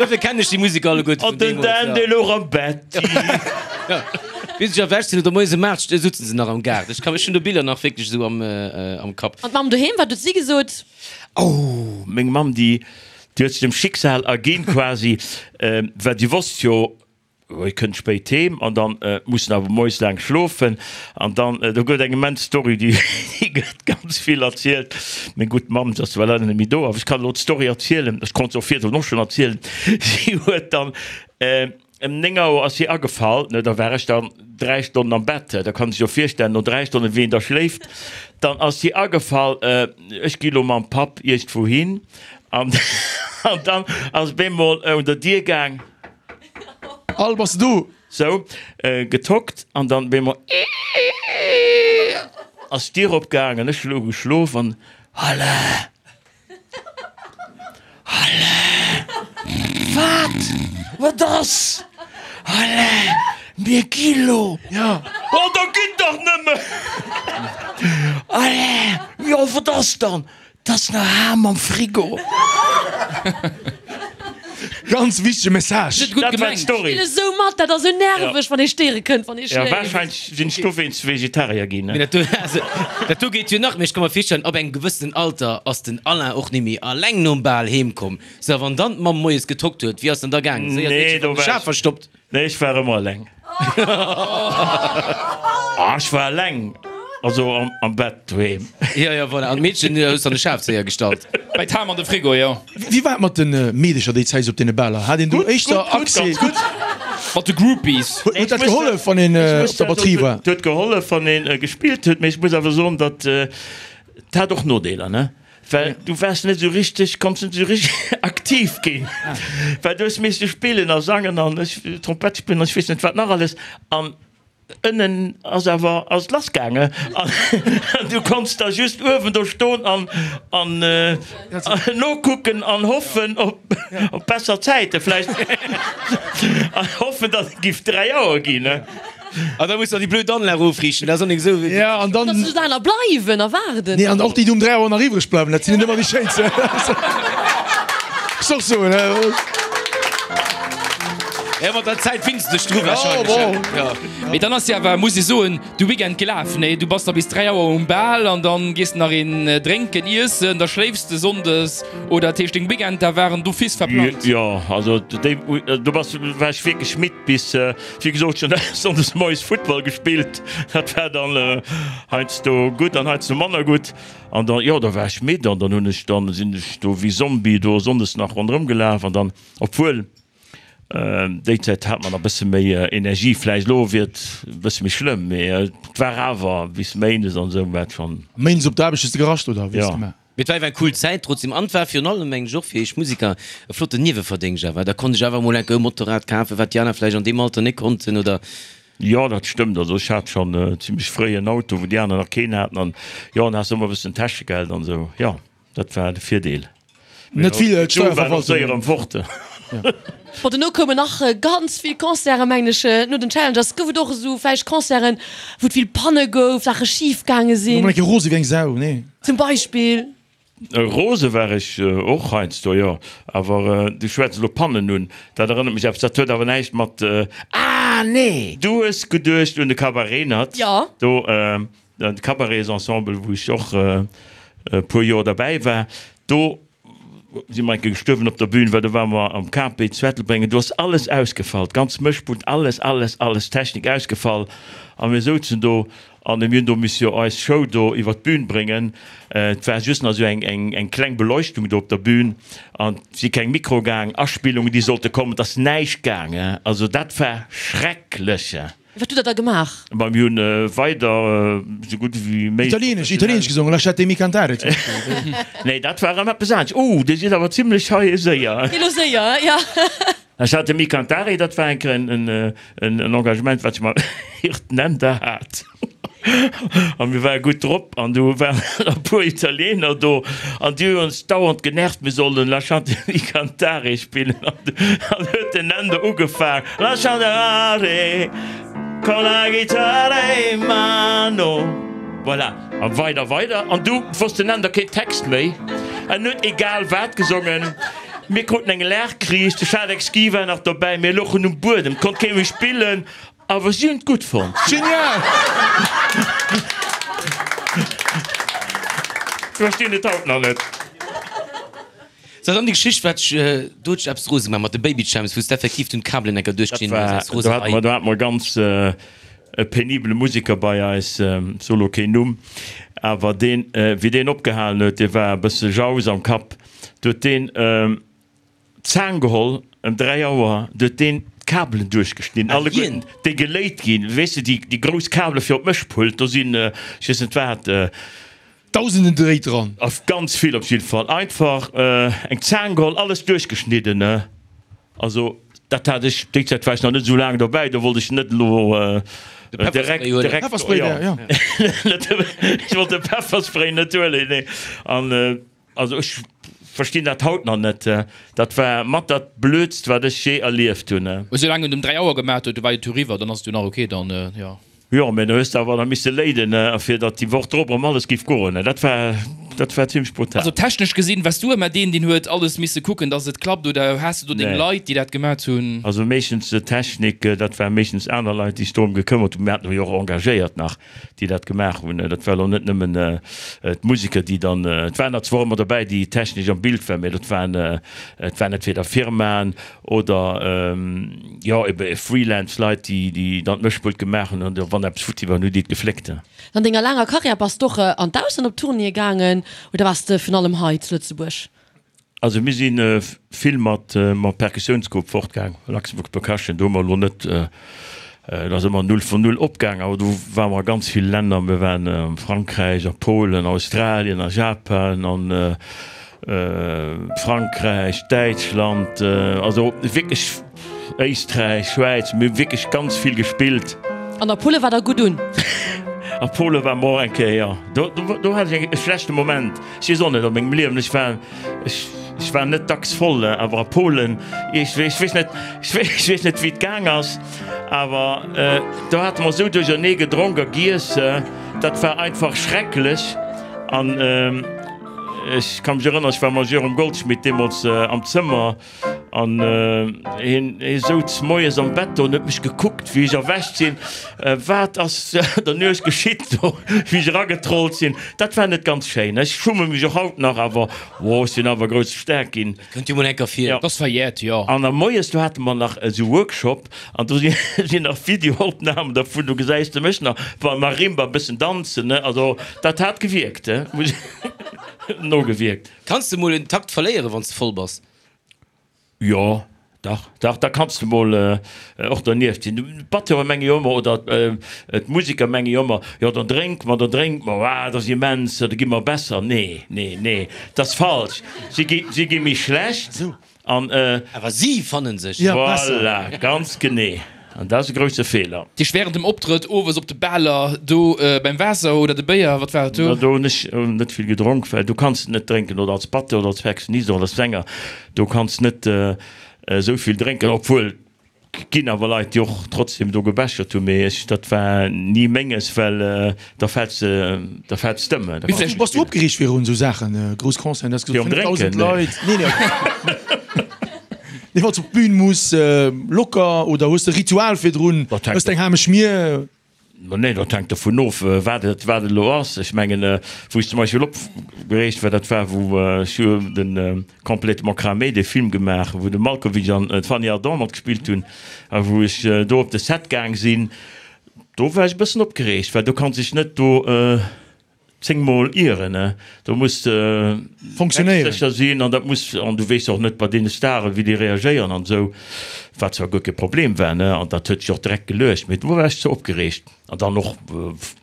Dofir kennen ech déi Musek alleguerte vun deemools. An den Dan dee louch am Bett. Jo, wéi se sech erwächt sinn oder moies ëm 8 sutzen se nach am Gaart. Ech kann, ech hunn do Biller nach wierklech esou am am Kapp. An d'Mamm doheem, wat huet si gesot? Oh, meng Mamm déi déi huet sech dem Schicksal erginn quasi, well si wosst jo, Hie kënnt spéit heem an dann muss en awer moies laang schlofen an dann, do gëtt eng immens Story, déi gëtt ganz vill erzielt. Meng gutt Mamm, se ass zwar leider net méi do, awer ech kann elo d'Story erzielen, ech konnt se och virdrun och schonn erzielen. Si huet dann ëm 9 Auer ass si agefall, ne, da war ech dann 3 Stonnen am Bett, da kann sech jo virstellen no 3 Stonnen wéi een da schléift. Dann ass si agefall, ech gi lo mam Papp iergendwou hin an dann ass bemol un der Dier gaang. Al, bass de do? Sou, getockt an dann bemol ass d'Dier opgaang an ech hu geschlof an Alain! Alain! Wat? Wat ass? Alain! Mir gi lo! Ja. Oh, da gitt dach nëmmen! Alain! Jo, wat ass dann? 't ass nach Ham am Frigo. Ganz wichtege Message. Net gutt Dat war gemengt. d'Story. Spille sou mat, dat ass sou nerveg, wann ee stéiere kënnt, wann ee Ja, schléift. wahrscheinlech sinn ech dowéinst Vegetarier ginn. Mee dat do, also, dat do geet jo nach. Mee ech ka mer virstellen, ab engem gewëssenen Alter ass den Alain och nimmi alleng nom Bal heem komm. Sou, a wann dann d'Mamm moies getockt huet, wéi ass dann da gaangen? Séier Nee, d'Meedche do vum war Schaf ech. verstoppt? Nee, ech war ëmmer eleng. Ah, ech war eleng, also am, am Bett doheem. Jo, jo, voilà. An d'Meedchen hues de an de Schafzéier gestallt. Bei d'Ham an de Frigo, jo. Wéi war et mat de Meedecher déi Zäit esou op deene Baler? Hat een do Gutt, éischter gutt, gutt, Accès? ganz gutt. Mat de Groupies. Huet huet dat gehollef, wann een op der Batterie war? Et huet gehollef, wann een gespillt huet, mee ech muss awer soen, datt, et hat och Nodeeler, ne? Well du waars net esou richteg, konns net esou richteg aktiv ginn, well du hues misste spillen a sangen an ech Trompett spillen an ech weess net wat nach alles an ënnen ass awer ass et lass gaange an du konns da just uewen do stoen an an nokucken an hoffen op op besser Zäite vläicht an hoffen, datt et giff 3 Auer ginn. An da muss nach déi blöd Anlag ofriichten, dat ass och nik esou wéi. Ja, an dann. Dass just aner bleiwen a waarden. Nee, an och déi, déi um 3 Auer nach iwwreg bleiwen, dat sinn net ëmmer déi schéinsten. Muss och soen, he. Ja, mat der Zäit finns de dech dru wahrscheinlech. Ja. Mee dann ass jo awer, muss ech soen, de Weekend gelaf, nee? Du bass da bis 3 Auer um Bal an dann gees de nach een drénken, iessen, da schléifs de Sonndes oder dat heescht deng Weekender waren d'office verplangt? Jo, also déi, do bass, war ech wierklech midd bis, wéi gesot, ech hunn Sonndes moies Futtball gespillt, dat war dann heiansdo gutt an heiansdo manner gutt. An dann, jo, da war ech midd an dann hunn ech dann, sinn ech do wéi Zombie do Sonndes nach ronderëm gelaf an dann, obwuel déi Zäit hat mer nach e bësse méi Energie vläicht, elo wier et e bësse méi schlëmm, mee et war awer bis Méindes an esou war et schonn. Méindes op d'Aarbecht hues de gerascht oder wéi hues de gemaach? Mee et war awer eng cool Zäit trotzdem an et war virun allem, mengen ech, och fir iech Musiker e flotten Nieweverdéngscht awer. Da konnt ech awer emol enke e Motorrad kafen, wat déi aner vläicht an deem Alter net konnten oder. Jo, dat stëmmt. Also ech hat schonn zimlech fréi en Auto, wou déi aner nach keen haten an jo, an has ëmmer e bëssen Täschegeld an esou. Jo, dat war de Virdeel. Net vill d'Steierverwaltung. Fort. Bon, dono koumen nach ganz vill Concerten, mengen ech, no den Challengers. Gouf et och esou vläicht Concerten, wou et vill Panne gouf, Saache schif gaange sinn? Mol eng Kéier rose wéi eng Sau, nee? Zum Beispill. Rose war ech och heiansdo, jo. Awer du schwätz elo Pannen un, dat erënnert mech eppes, dat huet awer näischt mat, ah nee! Du hues geduecht un de Cabaret Nat? Jo. Do, de Cabaretsensemble, wou ech och e puer Joer derbäi war, do si mer eng Kéier gestuerwen op der Bühn, well do ware mer am KP zu Ettelbréng an do ass alles ausgefall, d'ganz Mëschpult, alles, alles, alles, Technik ausgefall a mir souzen do an mir hunn do misse jo eis Show do iwwer d'Bühn bréngen. Et war just nach esou eng, eng, eng kleng Beleuchtung do op der Bühn an et si keng Mikroe gaang, Aspillungen, déi sollte kommen, et ass näischt gaang, also dat war schrecklech. Wat hutt der da gemaach? Ma mir hunn weider esou gutt ewéi méiglech. Italieenesch, italieenesch gesongen, Lasciatemi cantare zum Beispill. Nee, dat war erëm eppes anescht. Oh, dir sidd awer zimlech hei séier. Geet elo séier, jo. Lasciatemi cantare, dat war eng Kéier en Engagement, wat ech mam Hirt Nender hat. A mir ware gutt drop an du waren e puer Italiener do an déi hunn ons dauernd genervt, mir sollen Lasciatemi cantare spillen. An huet den Nando ugefaang, Lasciatemi con la chitarra in mano. Voilà, a weider, weider. An du wosst den Nando keen Text méi. En huet egal wat gesongen. Mir kruten eng Laachkris, de Schadek Ski war nach dobäi, mir louchen um Buedem, 't konnt kee méi spillen. Awer si hunn et gutt fonnt. Genial! Ech verstinn et haut nach net. Sou, dann déi Geschicht, wat ech, do huet sech eppes rose gemaach mat de Baby Champs, wou s de effektiv dunn d'Kabelen enker duerchgeschnidden hues aus Roserei. Do hate mer ganz e penibele Museker bei eis, ech soe lo keen Numm, awer deen, wéi deen opgehalen huet, dee war e bësse jaus am Kapp, do huet deen, D'Zaang geholl, ëm 3 Auer, du huet deen d'Kabelen duerchgeschnidden, alleguerten, déi geléit ginn, weess de, déi, déi grouss Kabele fir op d'Mëschpult, do sinn, ech weess net wat. Dausenden Dréit dran. Ganz vill op jidde Fall. Einfach eng Zaang geholl, alles duerchgeschnidden, ne. Also, dat hat ech, déi Zäit war ech nach net esou laang dobäi, do wollt ech net elo direkt, direkt, Pefferspray, jo, ech wollt de Pefferspray net huelen, nee. An. Also ech verstinn dat haut nach net. Dat war mat dat blödst wat ech je erlieft hunn. Esou laang en um 3 Auer gemaat huet, du war jo tout riwwer, dann ass et jo nach ok dann, jo. Jo, mä du hues awer da misse léiden, fir datt déi Woch drop erëm alles giff goen. Dat war, dat war zimlech brutal. Also technesch gesinn, wars du ëmmer deen, deen huet alles misse kucken, datt et klappt, oder has de do deng Nee. Leit, déi dat gemaat hunn? Also meeschtens d'Technik, dat ware meeschtens aner Leit, déi sech dorëm gekëmmert hunn. Mir haten jo och engagéiert nach. déi dat gemaach hunn. Dat war elo net nëmmen d'Museker, déi dann, et waren der zwar ëmmer dobäi, déi technesch am Bild waren, mä dat waren, et waren entweder Firmaen oder, jo, ebe Freelance-Leit, déi, déi dann d'Mëschpult gemaach hunn an wann eppes futti war, hunn déi et gefléckt. An denger laanger Karriär bass d'och an d'Ausland op Tournéeë gaangen oder waars de vun allem hei zu Lëtzebuerg? Also mir si vill mat mam Perkussiounsgrupp fortgaang, Luxembourg Percussion, do hu mer elo net, et ass ëmmer null vun null opgaang, awer do ware mer a ganz ville Länner, mir waren a Frankräich, a Polen, Australien, a Japan, a Frankräich, Däitschland, also wierklech Éisträich, Schwäiz, mir hu wierklech ganz vill gespillt. An a Pole war der gutt un? A Pole ware mer och eng Kéier, jo. Do, do hat ech e schlechte Moment. Ech weess och net, a mengem Liewen, ech war, ech, ech war net dacks voll, awer a Polen, ech, ech weess net, ech weess net, wéi et gaang ass, awer do hate mer esou duerchernee gedronk a giess, dat war einfach schrecklech. An ech ka mech erënneren, ech war mam Jérôme Goldschmidt deemools am Zëmmer. An hien hie souz moies am Bett do an huet mech gekuckt, wéi ech erwächt sinn. Wat ass der Nuecht geschitt do, wéi ech eragetrollt sinn? Dat war net ganz schéin. Ech schumme mech och haut nach, awer oh, ech sinn awer grouss staark ginn. Dat kënnt jo mol eng Kéier vir. Dat ass verjährt, jo. An a moies, do hate mer nach esou Workshop an do sinn nach Videoopnamen dervun, do gesäis de mech nach beim Marimba e bëssen danzen, ne. Also dat hat gewierkt, muss nogewierkt. Kanns de mol en Takt verléieren, wann s de voll bass? Jo, dach, dach, da kanns de mol och dernieft sinn. D'Batteure menge jo ëmmer, oder d'Museker menge jo ëmmer, jo dann drénke mer, dann drénke mer, ah, dat ass immens, da gi mer besser. Nee, nee, nee, dat ass falsch. Si gi, si gi méi schlecht an. Awer si fanne sech. Voilà, ganz genee. An dat ass e grousse Feeler. Dich während dem Optrëtt owes op de Baler do beim Waasser oder de Béier, wat war et do? Do hunn ech net vill gedronk, well do kanns de net drénken, oder als Batteur oder als Perkussionist oder als Sänger, do kanns net esou vill drénken, obwuel ginn awer Leit déi och trotzdem do gebechert hunn, mee ech dat war ni menges, well da fält da fält d'Stëmm. Bass du opgereegt virun esou Saachen, grouss Concerten, du has gesot 5.000 Leit? Nee, nee. Nee, wann s op d'Bühn muss, locker oder hues de Ritual virdrun, hues de eng haarmeg Mier? Nee, dat hänkt dovun of, wat et wat et elo ass. Ech mengen, wou ech zum Beispill opgereegt war, dat war wou ech hu de Complètement cramé, dee Film gemaach, wou de Malkovich an d'Fanny Ardant matgespillt hunn a wou ech do op de Set gaang sinn, do war ech e bëssen opgereegt, well do kanns dech net do 10 mol ieren, ne? Do muss de Fonctionnéieren. sécher sinn an dat muss, an du weess och net bei deene Staren, wéi déi reagéieren an esou, wat zwar guer kee Problem war, ne? An dat huet sech och direkt geluecht, mee do war ech ze opgereegt. An dann och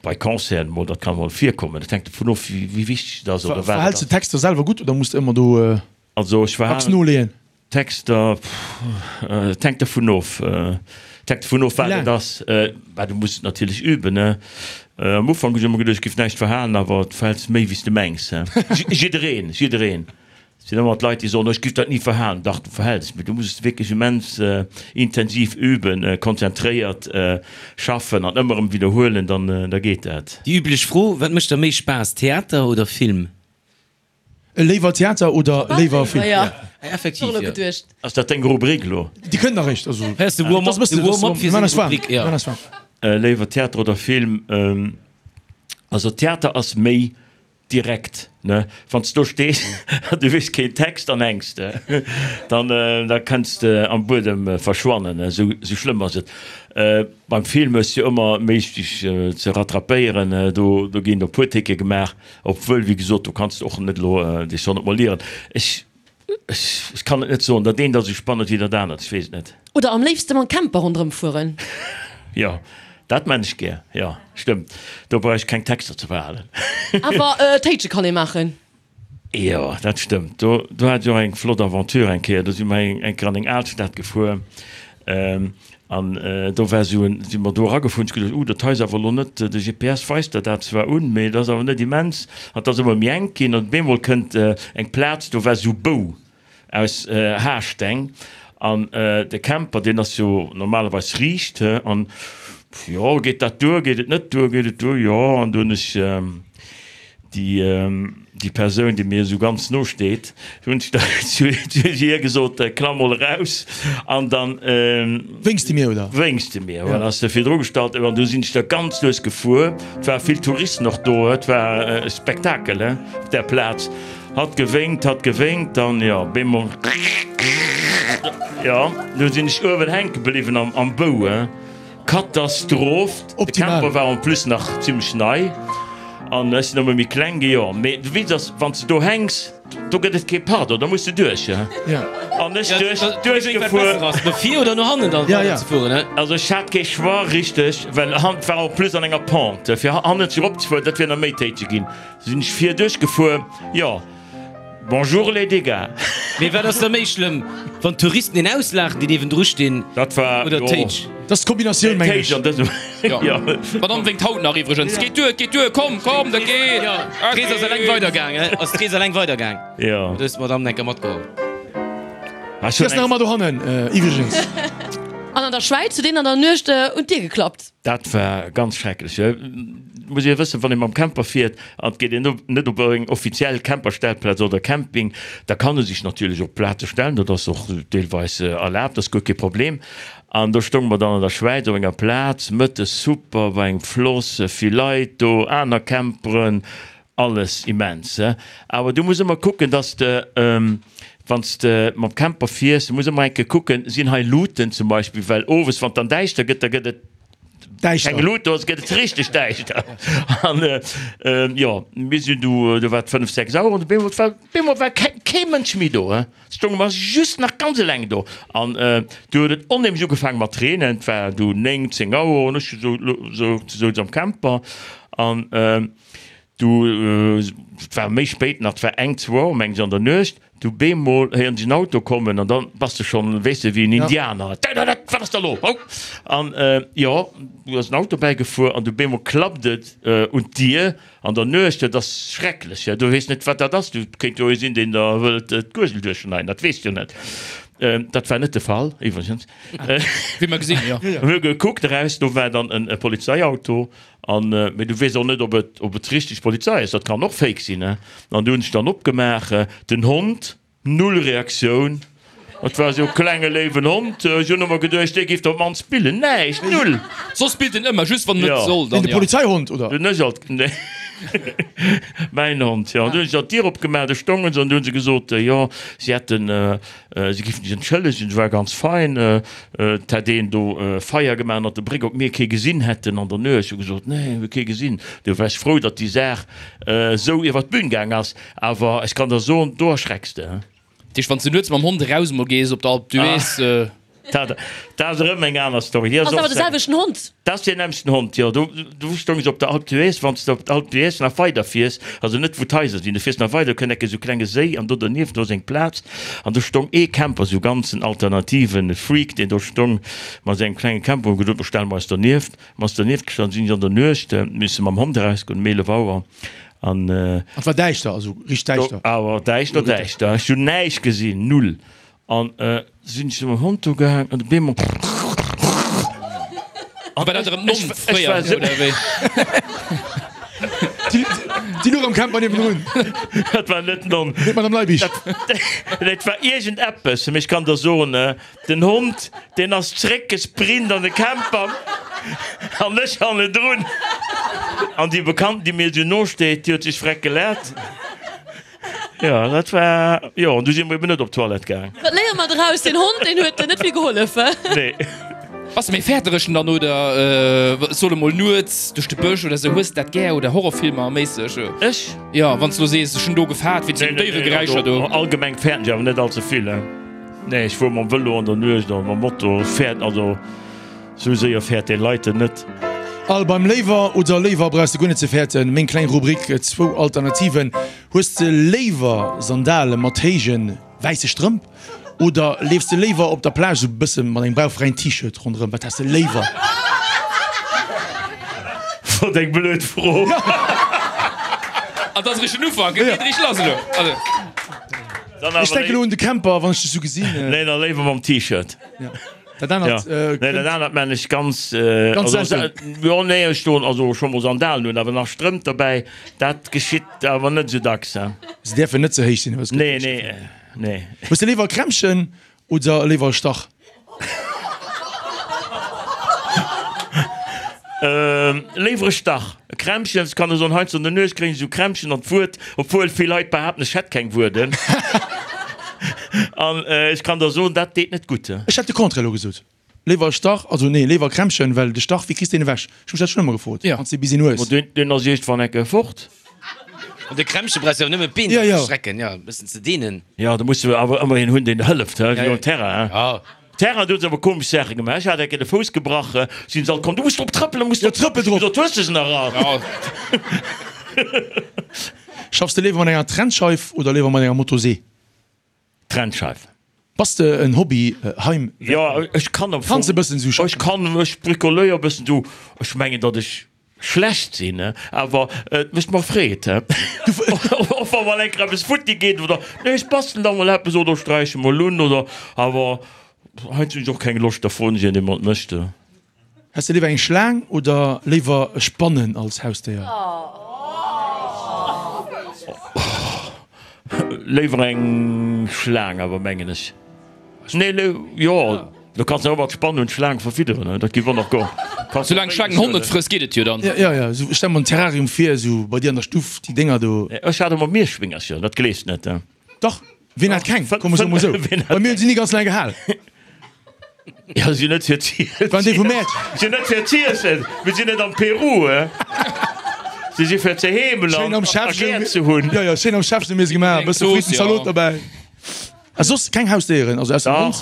bei Concerten mol, dat kann mol virkommen, dat hänkt dovun of, wéi wichteg et ass oder wat et ass. Verhäls de d'Texter selwer gutt oder muss de ëmmer do Also ech dacks noleeën? Texter, pff, et hänkt dovun of, et hänkt dovun of, wat et ass. Bah, du muss et natierlech üben, ne? Am Ufank hunn ech ëmmer geduecht, ech géif näischt verhalen, awer du verhäls méi, wéi s de mengs, he? Jiddereen, jiddereen. Et sinn ëmmer d'Leit, déi soen, oh, ech géif dat ni verhalen. Dach, du verhäls, mee du muss et wierklech immens intensiv üben, konzentréiert schaffen an ëmmer erëm widderhuelen, dann, da geet dat. Déi üblech Fro, Wat mécht der méi Spaass, Theater oder Film? Léiwer Theater oder léiwer Film? Ja, effektiv, jo. Ass dat deng Rubrik elo? Déi kënnt nach eréischt. Also, Hei ass de Warm-up, de Warm-up fir seng Rubrik, jo. Léiwer Theater oder Film? Also Theater ass méi direkt, ne? Wann s do stees an du weess keen Text an hänks de, dann da kënns de am Buedem verschwannen, esou schlëmm ass et. Beim Film hues de jo ëmmer méi dech ze rattrapéieren, do ginn e puer Ticke gemaach. Obwuel, wéi gesot, do kanns de och net elo dech 100 mol ieren. Ech, ech kann et net soen. Dat eent ass esou spannend wéi dat anert, ech weess et net. Oder am léifste mam Camper ronderëm fueren. Jo, dat man ech gär, jo, stëmmt. Do brauch ech keng Texter ze verhalen. Awer Téitsche kann ee maachen. Jo, dat stëmmt. Do, do hat ech och eng flott Aventure eng Kéier. Do si mer eng Kéier an eng Alstad gefuer. An do war esou en, si mer do eragefuer, hunn ech geduecht, uh, dat hei ass awer elo net, de GPS weist der dat zwar un, mee et ass awer net immens. An et ass ëmmer méi enk ginn an op eemol kënnt eng Plaz, do war esou Bou aus Haarsteng an de Camper, deen ass jo normalerweis riicht, he, an jo, geet dat duer, geet et net duer, geet et duer, jo, an du hunn ech Déi Persoun, déi mir esou ganz no steet, hunn ech da zu hir gesot, Klamm mol eraus an dann. Wénks de mir, oder? Wénks de mir, voilà, ass se virdru gestallt. An du sinn ech da ganz lues gefuer. Et ware vill Touristen och do, et war e Spektakel, he, op där Plaz. Hatt gewénkt, hatt gewénkt, dann, jo, bemol, jo, du sinn ech uewen hänke bliwwen am Bou, he. Katastroph! De Camper war en plus nach zimlech nei an ech sinn ëmmer méi kleng gi. Jo, mee de Witz ass, wann s de do hänks, do gëtt et kee Pardon, da muss de duerch. An ech duerch, duerchgefuer. No vir oder no hannen dann weider ze fueren, he? Also ech hat kee Choix richteg, well han war en plus an enger Pente, fir hannenzeg eropzefueren, dat wier nach méi téiteg ginn. Sinn ech vir duerchgefuer, jo. Bonjour les dégâts. Mee wat ass da méi schlëmm, wann d'Touristen een auslaachen, déi niewendru stinn, Dat war, oder jo. d'Téitsch? Dat ass d'Kombinatioun, mengen ech. D'Téitsch an dësem, jo. D'Madame wénkt haut nach iwwregens. Geet duer, geet duer, komm, komm, dat geet. Jo, d'Rees ass eleng weidergaang, he? Ass d'Rees eleng weidergaang? Jo. Du hues d'Madame enker matgeholl. Ah, ech Si hunn ass nach eng. ëmmer dohannen, iwwregens. An an der Schwäiz huet een an der Nuecht un d'Dier geklappt. Dat war ganz schrecklech. Et muss ee wëssen, wann ee mam Camper fiert an et geet een net op eng offiziell Camperstellplaz oder Camping, da kann e sech natierlech op Plaze stellen, dat ass och deelweis erlaabt, dat ass guer kee Problem. An do stounge mer dann an der Schwäiz op enger Plaz, mëttes super, bei engem Floss, vill Leit do, aner Camperen, Alles immens, awer du muss ëmmer kucken, dass de, wann s de mam Camper fiers, du muss ëmmer eng Kéier kucken, sinn hei Luuten zum Beispill, well owes, wann et dann däischter gëtt, da gëtt et keng Lut do, gëtt et richteg däischter. An jo, mir sinn du, do war et 5, 6 Auer an op eemol war, op eemol war kee Mënsch méi do, stounge mer just nach ganz eleng do. An du huet et onheemlech ugefaange mat reenen, et war du 9, 10 Auer an ech sou, souz am Camper an Du, et war méi spéit nach, et war eng, zwou Auer meng ech an der Nuecht, du bemol héieren ech en Auto kommen an dann bass de schonn, weess de, wéi en Indianer, Dädädät, wat ass da lo, hou? An jo, du ass en Auto bäigefuer an du bemol klappt et un d'Dier an der Nuecht, dat ass schrecklech, jo, du weess net wat dat ass, du kéint jo ee sinn, deen der wëllt d'Guergel duerchschneiden, dat weess de jo net. Dat war net de Fall iwwregens. Wéi mer gesinn, jo. Mir hu gekuckt eraus, do war dann e Polizeiauto An, mee du weess och net, ob et, ob et richteg Polizei ass, dat kann och Fake sinn, ne? An du hunn ech dann opgemaach, den Hond, null Reaktioun, et war esou e klenge léiwen Hond, ech hunn ëmmer geduecht, dee géif der op d'mannst billen, näischt, null! Soss billt en ëmmer, just wann en net soll, dann jo. De Polizeihond, oder? Dunn ech alt, nee, mäin Hond, jo. An du hunn ech alt d'Dier opgemaach, do stounge se an du hunn se gesot, jo, si hätten, Si géifen sech entschëllegen, se war ganz fein, et hätt een do Feier gemaach ënnert der Bréck, ob mir kee gesinn hätten an der Nuecht. Ech hu gesot, nee, mir hu kee gesinn. Du war ech frou, datt déi Saach esou iwwer d'Bün gaang ass, awer ech kann der soen, do erschrecks de. Dat heescht, wann s de nuets mam Hond eraus emol gees op der Alpe d'Huez. Dat ass erëm eng aner Story. Ass awer de selwechten Hond? Dat ass deen nämmlechten Hond, jo. Do, do stoung ech op der Alpe d'Huez. Wann s de op d'Alpe d'Huez nach weider fiers, also net wou d'Haiser sinn, du fiers nach weider, do kënnt enke sou klenge Séi an do dernieft, do ass eng Plaz an do stong ee Camper, sou ganz en alternativen Freak, deen do stong mat sengem klenge Camper. Hu gesot, mer stelle mer eis dernieft. Mer eis dernieft gestallt, sinn ech an der Nuecht misse mam Hond erausgoen um 11 Auer an. An et war däischter, also richteg däischter? Awer däischter, däischter. Ech hunn näischt gesinn, null. An sinn ech mam Hond do gaang an op eemol. War dat erëm d'Nonn fréier oder wéi? Déi luch am Camper niewendrun. Dat war net d'Nonn. Nee, d'Madame Leibig. Dat war iergendeppes, mee ech kann der soen, den Hond, deen ass zréckgesprint an de Camper an ech hannendrun. An déi Bekannten, déi mir esou no steet, déi huet sech freck gelaacht. Jo, dat war, jo, an du si mer eben net op d'Toilette gaang. Wat léiere mer draus? Den Hond, deen huet net vill gehollef. Nee. Bass de méi fäertereg dann oder soll emol nuets duerch de Bësch oder sou? Hues de dat gär oder Horrorfilmer méisseg? Ech? Jo, wann s de lo sees, ech hunn do gefaart wéinst den Déieregeräischer do. Allgemeng fäerten ech awer net all ze vill. Nee, ech fuer mam Vëlo an der Nuecht a mam Moto. Fäert, also. Sou séier fäert dee Leiten net. Al beim Léiwer oder Léiwer brauchs de guer net ze fäerten. Meng kleng Rubrik, zwou Alternativen. Hues de léiwer Sandale mat héije wäisse Strëmp oder leefs de léiwer op der Plage sou bësse mat engem bauchfräien T-Shirt ronderëm? Wat häss de léiwer? Wat eng blöd Fro. An dat ass eréischt den Ufank, et geet eréischt lass elo. Ech denken elo un de Camper, wann ech dech sou gesinn. Nee, da léiwer mam T-Shirt. Dat anert, Ja. äh, Nee, dat anert man ech ganz, äh, Ganz also, selten. jo, nee, ech doen also scho mol Sandalen un, awer nach Strëmp derbäi, dat geschitt awer net sou dacks, he. Se däerfen net ze héich sinn, hues Nee, nee, nee. Hues de léiwer e Krämpchen oder léiwer e Stach? Ähm, léiwer e Stach. E Krämpchen, ech kann der soen, heiansdo an der Nuecht kréien ech esou Krämpchen an d'Wuert, obwuel vill Leit behaapten, ech hätt keng Wuerden. An ech kann der soen, dat deet net gutt. Ech hätt de Contraire elo gesot. Léiwer e Stach, also nee, léiwer e Krämpchen, well de Stach, wéi kriss de deen ewech? Ech hu mech dat schonn ëmmer gefrot, wann s de bis een hues. Ma deen, deen ass iergendwann eng Kéier fort. An de Krämpche brauchs de awer nëmmen d'Been Ja, ja. ze strecken, jo, e bëssen ze deenen. Jo, da muss de awer ëmmer een hunn, deen der hëlleft, he, wéi um Terrain, he. Ja. Terrain, do hu se awer komesch Saache gemaach. Ech hat eng Kéier de Fouss gebrach, sinn se all komm, du muss drop trëppelen, du muss drop trëppel drop. Ech gesot, hues de se nach all? Ja. Schaffs de léiwer mat enger Trennscheif oder léiwer mat enger Motosee? Trennscheif. Bass de en Hobby Heim? Jo, ech kann am Fong. Kanns e bëssen sou schaffen? Ech kann, ech bricoléier e bëssen sou. Ech mengen, datt ech schlecht sinn, awer et mécht mer Freed, och wa mol eng Kéier eppes futti geet oder nee, ech bastelen da mol eppes oder sträiche mol un oder awer. Heiansdo hunn ech och keng Loscht, da froen ech een, dee mer et mécht. Häss de léiwer eng Schlaang oder léiwer Spannen als Hausdéier? Léiwer eng Schlaang awer, mengen ech. Nee, jo, du kanns jo och mat Spann un d'Schlaang verfidderen, dat géif och nach goen. Soulaang d'Schlaang den Hond net frësst, geet et jo dann. Jo, jo, esou, ech stelle mer en Terrarium vir, esou bei dir an der Stuff, déi Dénger do. Ech hat emol Mierschwéngercher, dat gleefs net. Dach, wien hat keng? Komm, ech soe mol esou, bei mir hunn se ni ganz laang gehal. Jo, si net fir z'iessen. Waren déi vum Mäert? Si net fir z'iessen. Mir sinn net am Peru, he. Si si fir ze heemelen Schéin am a Schäffchen. gär ze hunn. Jo, jo, schéin am Schäffchen hu mir se gemaach. E bësse Frittenszalot dobäi. A soss keng Hausdéieren, also ausser dem Hond?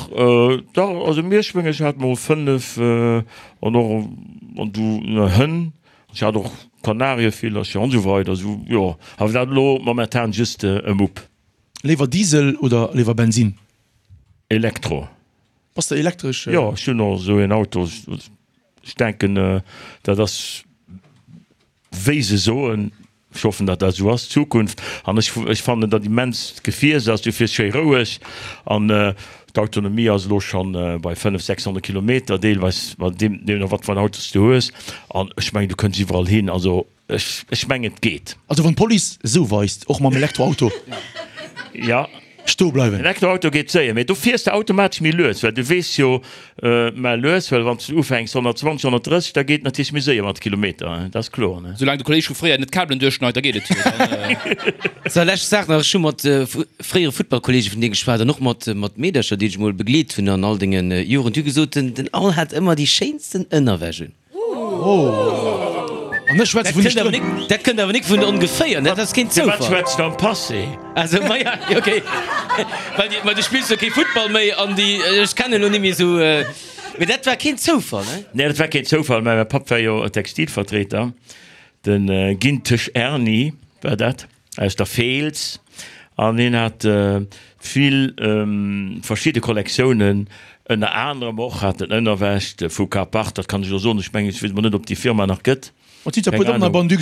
Dach, dach, also Mierschwéng, ech hat mol 5 an och an du Hënn. Ech hat och Kanarievillercher an esou weider. Esou, jo, awer dat elo momentan just e Mupp. Léiwer Diesel oder léiwer Bensin? Elektro. Bass de elektresch? Jo, ech hunn och esou een Auto. Ech denken, dat ass, wéi se soen, ech hoffen, datt dat esou ass, d'Zukunft. An ech, ech fannen dat immens d'Gefier, se ass, du fiers schéi roueg an d'Autonomie ass elo schonn bei 500, 600 Kilometer deelweis, deemno wat fir en Auto s du hues. An ech mengen, du kënns iwwerall hin. Also Ech, ech mengen et geet. Also wann d'Police esou weist, och mam Elektroauto. Ja. Stoe bleiwen. Elektroauto geet séier, mee do fiers de automatesch méi lues, well du weess jo, mä lues, well wann s de ufänks 120, 130, da geet et natierlech méi séier mat de Kilometer, dat ass kloer, ne? Soulaang de Kolleg vu fréier net d'Kabelen duerchschneit, da geet et jo. Dann. Sou, lescht Saach nach, Ech hu mat fréiere Futtballkollege vun dir geschwat an och mat mat Meedercher, déi ech emol begleet hunn an all denge Joren. Déi hu gesot, den den Al hat ëmmer déi schéinsten Ënnerwäsch un. An ech schwätze vun de Strëmp. Dat kënnt awer nik vun ongeféier, dat ass keen Firwat Zoufall. schwätzt de am Passé? Also, ma ja, okay. Well déi, ma du spills jo kee Futtball méi an déi, ech kennen elo nimmi esou, mee dat war keen Zoufall, ne? Nee, dat war keen Zoufall, mä mäi Papp war jo Textilvertreter, de Gintesch Erny war dat. Aus der Feels an hien hat vill verschidde Kollektiounen, ënner anerem och hat en Ënnerwäsch vu Kapart, dat kann ech elo soen, ech mengen, ech weess emol net, ob déi Firma nach gëtt, keng Ahnung.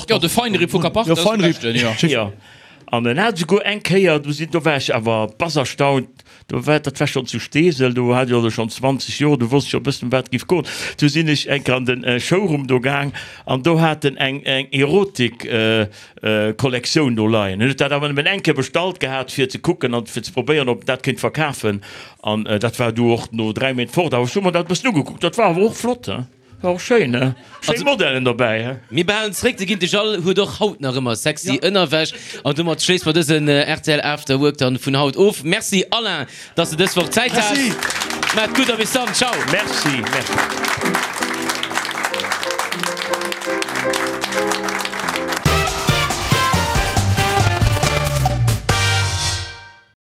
Jo, de Feinripp vu Kapart, dat ass de beschten, jo. Jo, an en hat esouguer eng Kéier, do sinn, do war ech awer bass erstaunt, do war, dat war schonn zu Steesel, do hat ech also schonn 20 Joer, do wosst ech scho e bëssen, ëm wat et giff goen, du sinn ech eng Kéier an de Showroom do gaang an do hat en eng Erotik Kollektioun do leien. Hien huet dat awer nëmmen eng Kéier bestallt gehat, fir ze kucken an fir ze probéieren, ob en dat kéint verkafen. An dat war du och no 3 Méint fort. Awer ech hu mer dat e bëssen ugekuckt, dat war awer och flott, he? War och schéin, he? Schéin Modellen dobäi, he? Mir behalen zeréck, de Gintesch Al huet och haut nach ëmmer sexy Ënnerwäsch. An domat schléisse mer dësen rtl After Work dann vun haut of. Merci Alain, dass de dës Woch Zäit has. Merci. Maat gutt a bis dann. Ciao. Merci, merci.